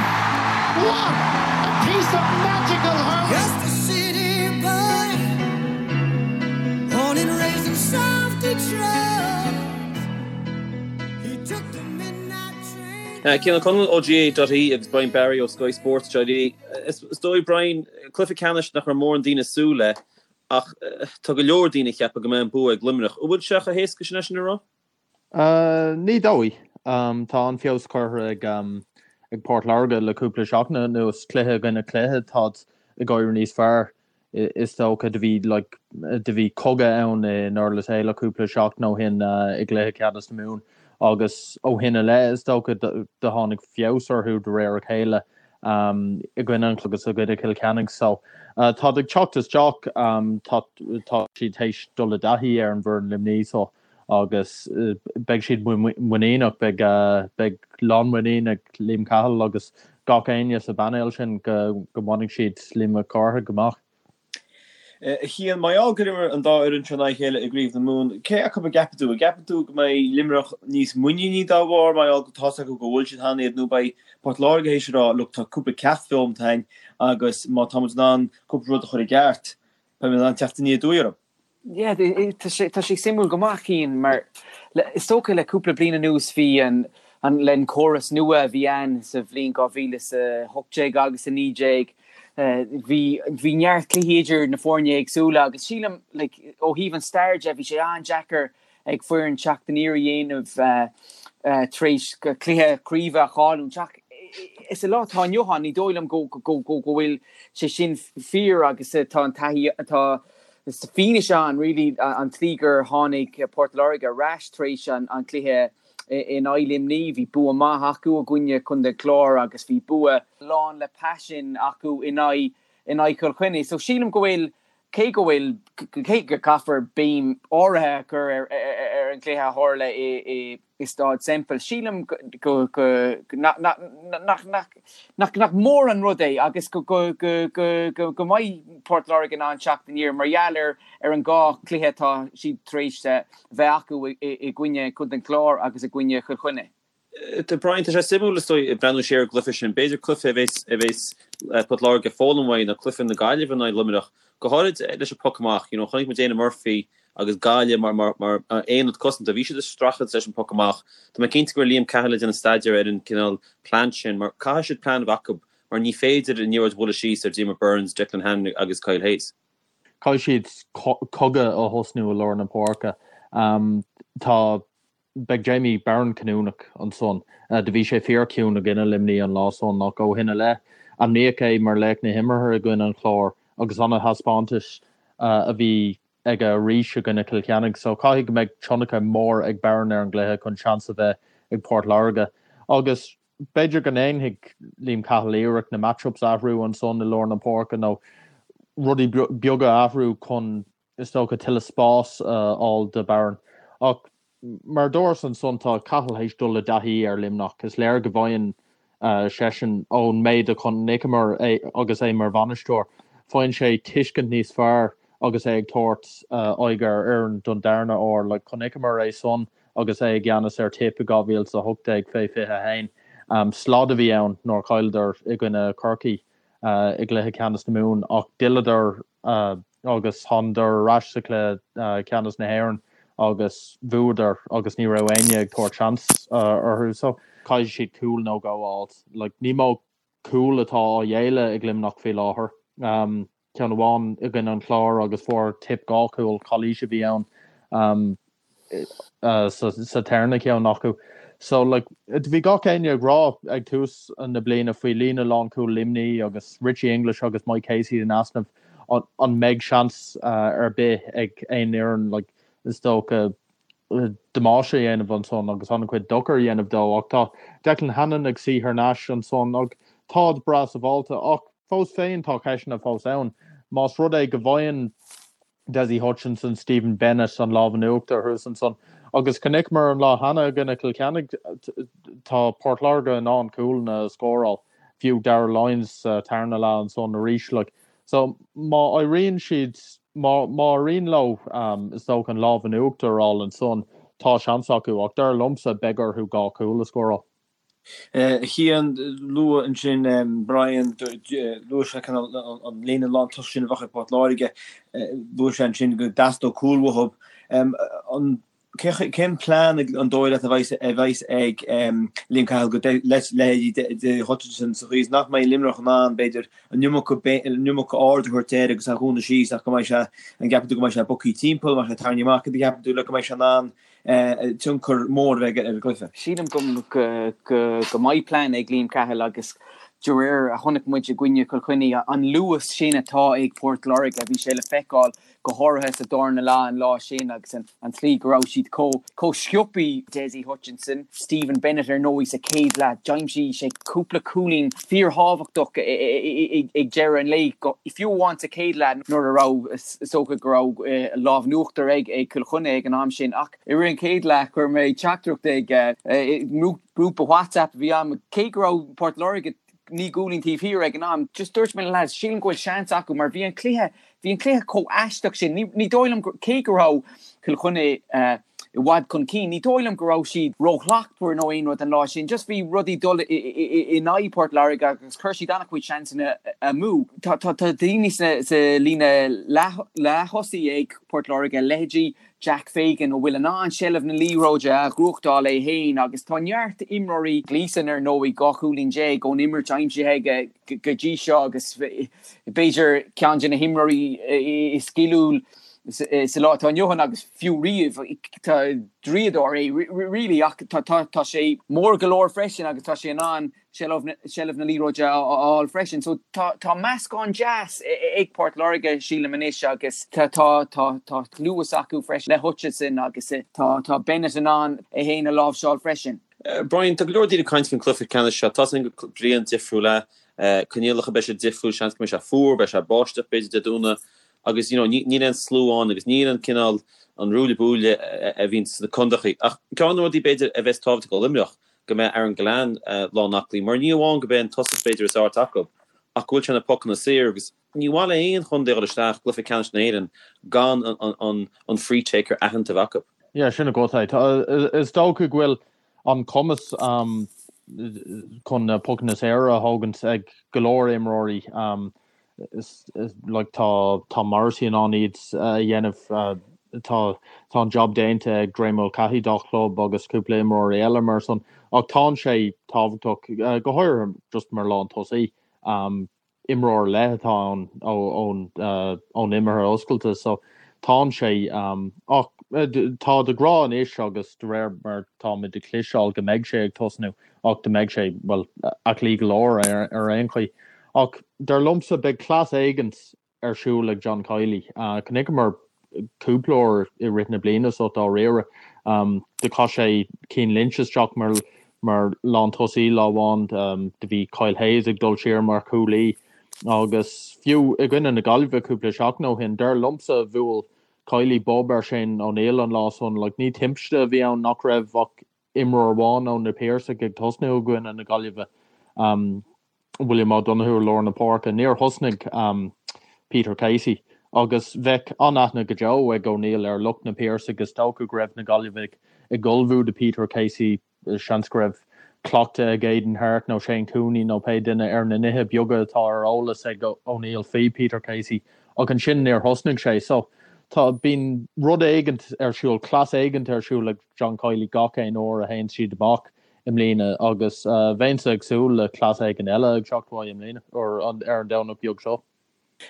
What a piece of magical hurling! Just a city boy, born and raised in South Detroit. Cian O'Connell ó GAA.ie agus Brian Barry ó Sky Sports.ie. Is dóigh, Brian, cluiche ceannais nach raibh mórán daoine ag súil le ach tá go leor daoine ag ceapadh go mbeidh an bua ag Luimneach. An bhfuil sé chomh héasca sin é sin a rá? Ní dóigh. Tá an-fheabhas curtha ag Port Láirge le cúpla seachtain anuas. Cluiche i gcoinne cluiche, táid ag éirí níos fearr. Is dócha do bhí like do bhí cogadh ann i nDurlas Éile cúpla seachtain ó shin i gcluiche ceannais na Mumhan agus ó shin i leith is dócha do tháinig feabhas orthu de réir a chéile i gcoinne an agus i gcoinne Chill Chainnigh. So táid ag teacht isteach, tá tá siad théis dul i dtaithí ar an bhfoireann Luimní so agus beidh siad muiníneach, beidh beidh lánmhuinín ag Liam Cahill agus gach éinne sa bpainéal sin go go mbainfidh siad Liam Mac Cárthaigh amach. A Chian, mar gheall gur imir an dá fhoireann seo in aghaidh a chéile i gCraobh na Mumhan, cé acu a gceapann tú? An gceapann tú go mbeidh Luimneach níos muiníní dá bharr, mar gheall go tá's acu go bhfuil siad cheana iad, nó beidh Port Láirge théis a rá, look, tá cúpla ceacht foghlamtha againn agus má tá muid in ann cúpla rud a chur i gceart, beidh muid in ann teacht aniar aduaidh orthu? Yeah, tá sé tá sé suimiúil go maith, Cian, mar is dócha le cúpla bliain anuas bhí an an le an córas nua a bhí ann sa bhliain 2018 agus 19 bhí bhí neart cluichí idir na foirne éagsúla agus sílim like ó thaobh an stair de bhí sé an-deacair ag foireann teacht aniar a dhéanamh tar éis cluiche craoibhe a chailliúint ach sa lá atá inniu ann ní dóigh liom go go go go bhfuil sé sin fíor agus tá an taithí tá Is fianaise ann really an tslí gur tháinig Port Láirge ar ais tar éis an chluiche in aghaidh Luimní. Bhí bua maith acu i gcoinne Chontae an Chláir agus bhí bua lán le paisean acu in aghaidh in aghaidh Chill Chainnigh. So sílim go bhfuil, cé go bhfuil, cé go gcaithfear béim áirithe a chur ar ar an gcluiche a tharla i i Staid Semple. Sílim go nach mór an rud é agus go mbeidh Port Láirge in ann teacht aniar mar gheall ar an dhá chluiche atá siad tar éis bheith acu i gcoinne Chontae an Chláir agus i gcoinne Chill Chainnigh. Brian, tá sé suimiúil is dóigh breathnú siar ar an gcluiche sin. B'fhéidir cluiche a bheas a bheas Port Láirge ag foghlaim uaidh ná cluiche na Gaillimhe in aghaidh Luimneach, go háirid leis an poc amach. You know, chonaic muid Éanna Murphy agus Gaillimh mar mar mar aonad cosanta. Bhí siad ag streachailt leis an poc amach. Tá mé cinnte go raibh Liam Cahill ag déanamh staidéir ar an cineál plean sin mar caithfidh siad plean a bheith acu mar ní féidir an liathróid a bhualadh síos ar Diarmaid Byrnes, Declan Hannon agus Kyle Hayes. Caithfidh siad cogadh a thosnú i lár na páirce. Tá Beidh Jamie Barron cinniúnach ansan. Do bhí sé fíor ciúin i gcoinne Luimní an lá san ach ó shin i leith, ainmníodh é mar laoch na himeartha i gcoinne an Chláir agus ana-thaispeántas a bhí aige arís i gcoinne Chill Chainnigh. So caithfidh go mbeidh tionchar mór ag Barron ar an gcluiche chun seans a bheith ag Port Láirge. Agus b'fhéidir go ndéanfaidh Liam Cahill iarracht na match-ups a athrú ansan i lár na páirce nó rudaí beaga a athrú chun is dócha, tuilleadh spás a fháil do Barron. Ach mar a dúras ansan, tá Cahill théis dul i dtaithí ar Luimneach. Is léir go bhfaigheann seisean, ón méid a chonaiceamar é agus é mar bhainisteoir, faigheann sé tuiscint níos fearr agus é ag tabhairt aghaidh ar fhoireann don darna huair. Like, chonaiceamar é san agus é i gceannas ar Tipp i 2018 fé 21. Slad a bhí ann nuair a chailleadar i gcoinne Chorcaí i gcluiche ceannais na Mumhan ach d'fhilleadar agus thánadar ar ais sa chluiche ceannais na hÉireann agus bhuadar agus ní raibh éinne ag tabhairt seans orthu so caithfidh siad cúl nó dhó a fháilt. Like ní mó cúl atá á ghéilleadh ag Luimneach faoi láthair. Ceann amháin i gcoinne an Chláir agus fuair Tipp 2 chúl, calaois a bhí ann. sa tarna ceann acu. So like bhí gach éinne ag rá ag tús na bliana faoi líne lánchúil Luimní agus Richie English agus Mike Casey in easnamh an mbeidh seans ar bith ag aon fhoireann like is dócha damáiste a dhéanamh ansan agus an-chuid dochar a dhéanamh dó ach tá Declan Hannon ag suí thar n-ais ansan ach táid breá sábháilte ach fós féin tá ceisteanna fós ann más rud é go bhfaigheann Dessie Hutchinson, Stephen Bennett an lámh in uachtar thuas ansan. Agus chonaiceamar an lá cheana i gcoinne Chill Chainnigh, tá Port Láirge in ann cúlanna a scóráil. Fiú Darragh Lyons sa tarna leath ansan arís like. So má éiríonn siad, má má éiríonn leo is dócha an lámh in uachtar a fháil ansan, tá seans acu ach dar liomsa beidh orthu 2 chúl a scóráil. A Chian, luaigh ansin Brian, luaigh sé cineál an líne lántosaigh sin a bheadh ag Port Láirge, luaigh sé ansin go dteastódh cúl uathu. An Cén plean an dóigh leat a bheas ag Liam Cahill do leithéidí de Hutchinson sa chaoi is nach mbeidh Luimneach in ann, b'fhéidir, an iomarca aird a thabhairt air agus é a dhúnadh síos ach go mbeidh sé, an gceapann tú go mbeidh sé bogtha timpeall, an mbeidh sé tarraingthe amach, cad a cheapann tú le go mbeidh sé in ann tionchar mór a bheith aige ar an gcluiche? Sílim go mbeidh plean ag Liam Cahill agus de réir a chonaic muid i gcoinne Chill Chainnigh, an luas sin atá ag Port Láirge, bhí sé le feiceáil go háirithe sa darna leath an lá sin agus an tslí go raibh siad chomh chomh sciobthaí. Dessie Hutchinson, Stephen Bennett ar ndóigh sa chéad leath, d'aimsigh sé cúpla cúilín fíorthábhachtach ag deireadh an lae, fiú amháin sa chéad leath nuair a raibh, is dócha go raibh lámh in uachtar ag Cill Chainnigh ag an am sin. Ach i rith an chéad leath chuir mé teachtaireacht ag grúpa WhatsApp a bhí agam, cé go raibh Port Láirge 9 gcúilín taobh thiar ag an am, just dúirt mé le lads, sílim go bhfuil seans acu mar bhí an cluiche, bhí an cluiche chomh aisteach sin. Ní, ní dóigh liom, cé go raibh Cill Chainnigh i bhfad chun cinn, ní dóigh liom go raibh siad róshlachtmhar nó aon rud an lá sin. Just bhí rudaí dul in aghaidh Port Láirge agus chuir siad an-chuid seansanna amú. Tá, tá, tá daoine sna, sa líne leath, leath-thosaigh ag Port Láirge, leithéidí Jack Fagan, a bhfuil in ann seilbh na liathróide a ghnóthachtáil é féin agus tá neart imreoirí, Gleeson ar ndóigh, 12 chúilín ón imirt aimsithe aige go dtí seo agus b'fhéidir ceann de na himreoirí is sciliúil sa lá atá inniu ann agus fiú riamh. Tá draíodóir é really ach tá sé mór go leor freisin agus tá sé in ann seilbh na liathróide a fháil freisin. So tá tá meascán deas ag Port Láirge sílim anois agus tá tá tá tá luas acu freisin le Hutchinson agus tá tá Bennett in ann é féin a láimhseáil freisin. Brian, tá go leor daoine ag caint faoin cluiche ceannais seo. Tá a fhios againn gur bliain difriúil é. Coinníollacha, beidh sé difriúil, seans go mbeidh sé fuar, beidh sé báisteach b'fhéidir Dé Domhnaigh agus you know níl aon slua ann agus níl an cineál an ruaille buaille a bhíonn sna condaechaí. Ach ceann de na rudaí b'fhéidir a bheas tábhachtach do Luimneach go mbeidh Aaron Gillane lánaclaí, mar ní amháin gurb é an tosach b'fhéidir is fearr atá acu, ach go bhfuil sé na pocanna saor agus ní mhaith le haon chontae a dhul isteach i gcluiche ceannais na hÉireann gan an free taker aitheanta a bheith acu. Yeah, sin agat é. Is dócha go bhfuil an cumas chun na pocanna saora a thógaint ag go leor imreoirí. Like tá tá Morrissey in ann iad a dhéanamh, tá tá an job déanta ag Graeme Mulcahy dá chlub agus cúpla imreoirí eile mar san ach tá sé tábhachtach go háirithe just mar lán tosaí imreoir ar leith atá ann ón ón imeartha oscailte so tá sé ach tá de rá anois agus de réir mar táimid ag cloisteáil go mbeidh sé ag tosnú ach go mbeidh sé well aclaí go leor ar ar aon chaoi. Ach dar liomsa beidh cleas éigint ar siúl ag John Kiely. Chonaiceamar cúpla uair i rith na bliana so dáiríre. Do chaith sé Cian Lynch isteach mar mar lántosaí lá amháin. Do bhí Kyle Hayes ag dul siar mar chúlaí agus fiú i gcoinne na Gaillimhe cúpla seachtain ó shin, dar liomsa bhuail Kiely bob ar Shane O'Neill an lá san. Like ní timpiste a bhí ann nach raibh ach imreoir amháin ó na Piarsaigh ag tosnú i gcoinne na Gaillimhe. William O'Donoghue i lár na páirce. Níor thosnaigh Peter Casey agus bheadh an-aithne go deo ag O'Neill ar lucht na Piarsaigh. Is dócha go raibh na Gaillimhigh ag ullmhú do Peter Casey. Seans go raibh cleachtadh ag Aidan Harte nó Shane Cooney nó pé duine ar na nithe beaga atá ar eolas ag O'Neill faoi Peter Casey ach ansin níor thosnaigh sé. So tá, bíonn rud éigint ar siúl, cleas éigint ar siúl ag John Kiely gach aon uair a théann siad amach i mbliana agus bheinnse ag súil le cleas éigin eile ag teacht uaidh i mbliana, ar an Domhnach beag seo.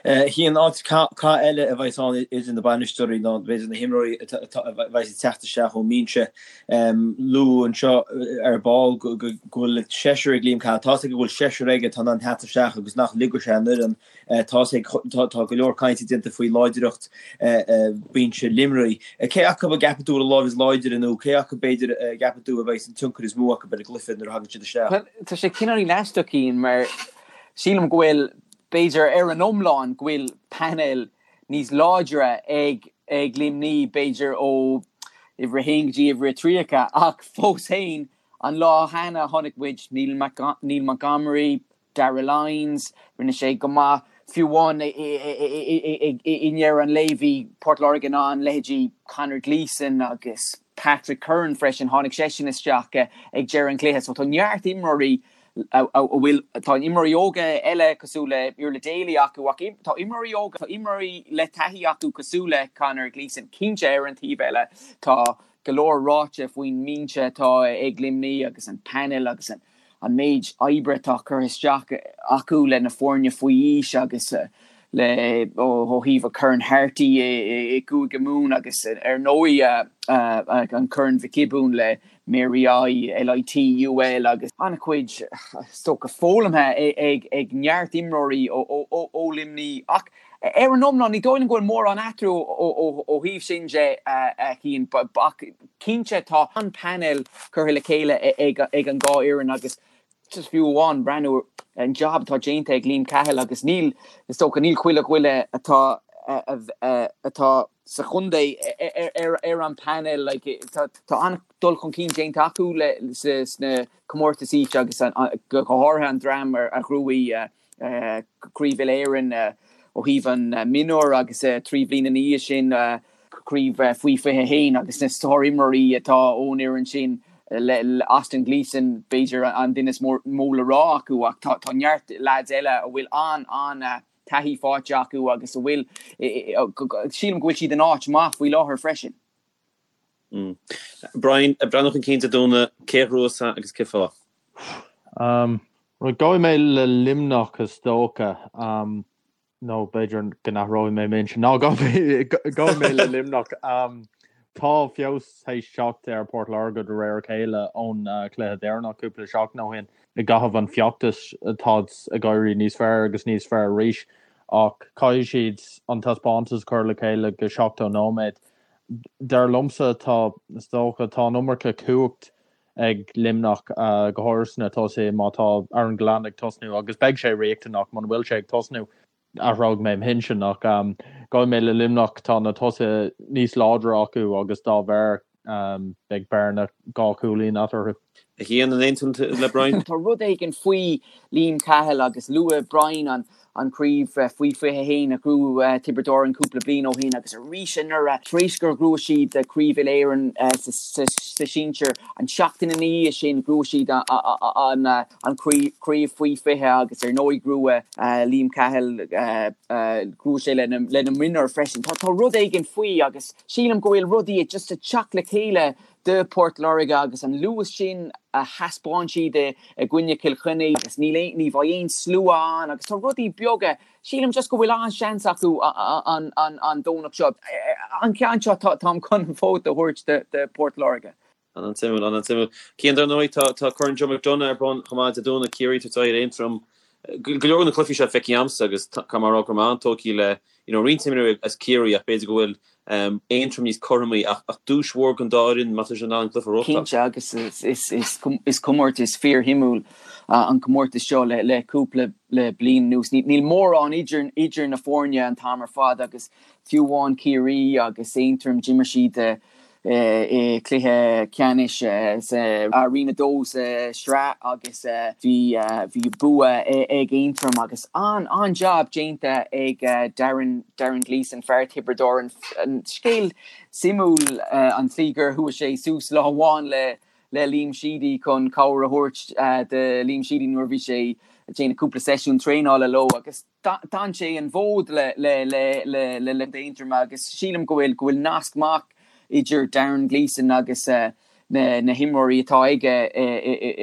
Cian, áit cath eile a bheas ann idir na bainisteoirí ná b'fhéidir na himreoirí a bheas ag teacht isteach ón mbinse. Luadh anseo ar ball go bhfuil seisear ag Liam Cahill. Tá's aige go bhfuil seisear aige atá in ann teacht isteach agus nach ligfidh sé an fhoireann Tá's ag, tá go leor cainte déanta faoi láidreacht binse Luimnigh. Cé acu a gceapann tú a bhfuil an láimh is láidre nó cé acu b'fhéidir a gceapann tú a bheidh an tionchar is mó acu ar an gcluiche nuair a thagann siad isteach? Bhuel, tá sé cineáilín aisteach, Cian, mar sílim go bhfuil, b'fhéidir ar an iomlán, go bhfuil painéal níos láidre ag ag Luimnigh, b'fhéidir ó uimhir a haon go dtí uimhir a 30, ach fós féin, an lá cheana chonaic muid Neil Montgomery, Darragh Lyons, rinne sé go maith. Fiú amháin i ndeireadh an lae bhí Port Láirge in ann leithéidí Conor Gleeson agus Patrick Curran freisin, tháinig seisean isteach ag deireadh an chluiche. So tá neart imreoirí a bhfuil, tá imreoirí óga eile cosúil le Iarla Daly acu ach tá imreoirí óga, tá imreoirí le taithí acu cosúil le Conor Gleeson. Cinnte ar an taobh eile tá go leor ráite faoin mbinse atá ag Luimnigh agus an panel agus an an méid oibre atá curtha isteach acu le na foirne faoi aois agus le ó thaobh an Corn Harty i gCúige Mumhan agus ar ndóigh an Corn Mhic Giobúin le Mary I, LIT, UL agus an-chuid is dócha foghlamtha ag neart imreoirí ó Luimnigh ach ar an iomlán ní dóigh liom go bhfuil mórán eatarthu ó thaobh sin de a Chian ach cinnte tá an painéal curtha le chéile ag an dhá fhoireann agus just fiú amháin breathnú ar an jab atá déanta ag Liam Cahill agus níl, is dócha, níl chuile dhuine atá atá sa chontae ar an bpainéal like tá an-dul chun cinn déanta acu le sna comórtais aoise agus go háirithe an dream a ghnóthaigh Craobh Uile-Éireann ó thaobh an mionúr agus 3 bhliain ina dhiaidh sin craobh faoi 21 agus na sár-imreoirí atá ón fhoireann sin le Austin Gleeson b'fhéidir an duine is mó le rá acu ach tá neart leaids eile a bhfuil an-an-taithí faighte acu agus a bhfuil sílim go bhfuil siad in áit maith faoi láthair freisin. Brian, ag breathnú chun cinn Dé Domhnaigh, cé a ghnóthós agus cén fáth? Right, gabhfaidh mé le Luimneach is dócha. Nó b'fhéidir go n-athróidh mé m'intinn. Ná, gabhfaidh mé le Luimneach. Tá feabhas théis teacht ar Port Láirge de réir a chéile ón chluiche deireanach cúpla seachtain ó shin. I gcaitheamh an feachtais táid ag éirí níos fearr agus níos fearr arís ach caithfidh siad an taispeántas a chur le chéile go 70 nóiméad. Dar liomsa tá, is dócha, tá an iomarca cumhacht ag Luimneach, go háirithe sna tosaithe, má tá Aaron Gillane ag tosnú, agus beidh sé riachtanach, muna bhfuil sé ag tosnú, athróidh mé m'intinn, ach gabhfaidh mé le Luimneach, tá na tosaithe níos láidre acu agus dá bharr beidh bearna 2 chúilín eatarthu. A Chian, an aontaíonn tú le Brian? Tá rud éigin faoi Liam Cahill agus luaigh Brian an an chraobh faoi 21 a ghnóthaigh Tiobraid Árann cúpla bliain ó shin agus arís anuraidh tar éis gur ghnóthaigh siad Craobh Uile-Éireann sa sinsir an tseachtain ina dhiaidh sin ghnóthaigh siad an chraobh faoi 20 agus ar ndóigh ghnóthaigh Liam Cahill ghnóthaigh sé lena mionúir freisin. Tá rud éigin faoi agus sílim go bhfuil rudaí just ag teacht le chéile do Port Láirge agus an luas sin a thaispeáin siad i gcoinne Chill Chainnigh agus níl aon, ní bheidh aon slua ann agus tá rudaí beaga, sílim just go bhfuil an-seans acu an an Domhnach seo. An ceann seo táim chun an vóta a thabhairt do Port Láirge. An-suimiúil, an-suimiúil. Cian, dar ndóigh, tá tá Corn Joe McDonagh ar bun chomh maith Dé Domhnaigh, Ciarraí ag tabhairt aghaidh ar Aontroim. Go leor de na cluichí seo feicthe agamsa agus caithfidh mé a rá go raibh mé an-tógtha le you know roinnt imreoirí as Ciarraí ach b'fhéidir go bhfuil Aontroim níos cothromaí ach ach duais mhór don dá fhoireann má tá siad in ann an cluiche a reáchtáil. Cinnte agus is comórtas fíorshuimiúil an comórtas seo le le cúpla le bliain anuas. Níl mórán idir idir na foirne an t-am ar fad agus fiú amháin Ciarraí agus Aontroim d'imir siad i gcluiche ceannais sa Roinn 2 sa sraith agus bhí bhí bua ag Aontroim agus an-an-jab déanta ag Darren Darren Gleeson, fear Thiobraid Árann. Scéal suimiúil an tslí gur chuaigh sé suas lá amháin le le Liam Sheedy chun cabhair a thabhairt do Liam Sheedy nuair a bhí sé ag déanamh cúpla seisiún traenála leo agus D'fhan sé an fód le Aontroim agus sílim go bhfuil go bhfuil nasc maith idir Darren Gleeson agus na himreoirí atá aige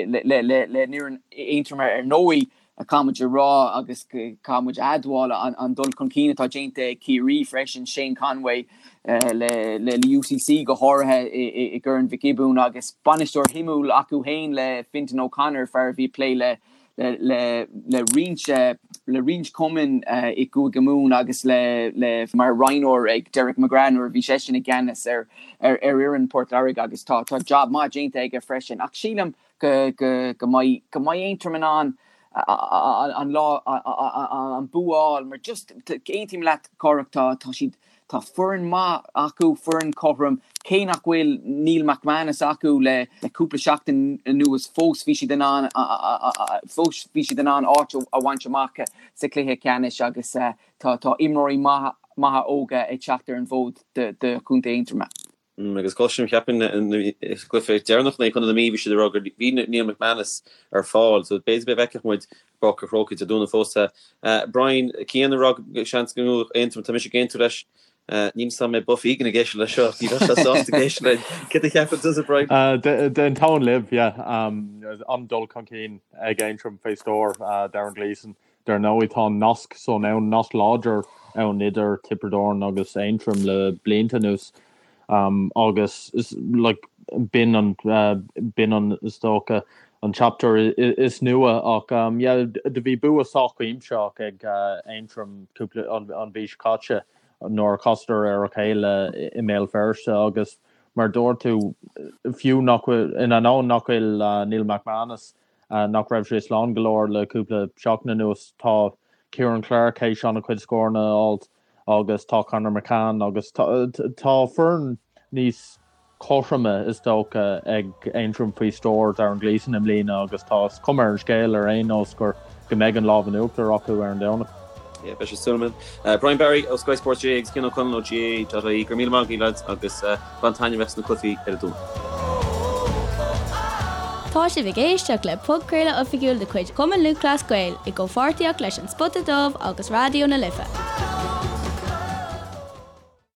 le foireann Aontroim ar ndóigh caithfidh muid a rá agus caithfidh muid a admháil an dul chun cinn atá déanta ag Ciarraí freisin, Shane Conway le UCC go háirithe i gCorn Mhic Giobúin agus bainisteoir shuimiúil acu féin le Fintan O'Connor, fear a bhí ag plé le le roinnt le roinnt cumainn i gCúige Mumhan agus le le mar roghnóir ag Derek McGrath nuair a bhí seisean i gceannas ar ar fhoireann Port Láirge agus tá tá job maith déanta aige freisin ach sílim go go go mbeidh go mbeidh Aontroim in ann. An lá an bua a fháil mar just aontaím leat Cárthach tá tá siad tá foireann maith acu foireann cothrom cé nach bhfuil Neil McManus acu le le cúpla seachtain anuas fós bhí siad in ann fós bhí siad in ann áit a bhaint amach sa chluiche ceannais agus tá tá imreoirí maithe maithe óga ag teacht ar an bhfód do do Chontae Aontroma. Agus cloisim, cheapfainn, sa gcluiche deireanach in aghaidh Chontae na Mí, bhí siad ag rá gur bhí Neil McManus ar fáil, so b'fhéidir go bhfeicfeadh muid i bPáirc an Chrócaigh Dé Domhnaigh fosta. Brian, Cian ag rá go seans go mbuafadh Aontroim, tá mise ag aontú leis. Níl 'fhios a'm an mbeidh Buff Egan ag éisteacht leis seo, ní bheadh sé sásta ag éisteacht linn. Céard a cheapann tusa, Brian? D'aontóinn libh, yeah. An-dul chun cinn ag Aontroim faoi stiúir Darren Gleeson. Dar ndóigh, tá an nasc san ann, nasc láidir ann idir Tiobraid Árann agus Aontroim le blianta anuas agus like b'in an, b'in an, is dócha, an chapter is nua ach yeah do bhí bua sách cuimsitheach ag Aontroim cúpla, an mhí seo caite nuair a chasadar ar a chéile i mBéal Feirste agus mar dúirt tú, fiú nach bhfuil, in ainneoin nach bhfuil Neil McManus nach raibh sé slán go leor le cúpla seachtain anuas. Tá Ciaran Clarke théis an-chuid scóranna a fháilt agus tá Conor McCann agus tá foireann níos cothroime is dócha ag Aontroim faoi stiúir Darren Gleeson i mbliana agus tá is cuma ar an scéal ar aon nós gur go mbeidh an lámh in uachtar acu ar an Domhnach. Yeah, beidh sé súil agam. Brian Barry ó Sky Sports GAA agus Cian Ó Conaill ó GAA.ie. Go raibh míle maith agaibh lads agus bain taitneamh as na cluichí ar an Domhnach. Tá sibh ag éisteacht le podchraoladh oifigiúil de chuid Chumann Lúthchleas Gael i gcomhpháirtíocht leis An Spota Dubh agus Raidió na Life.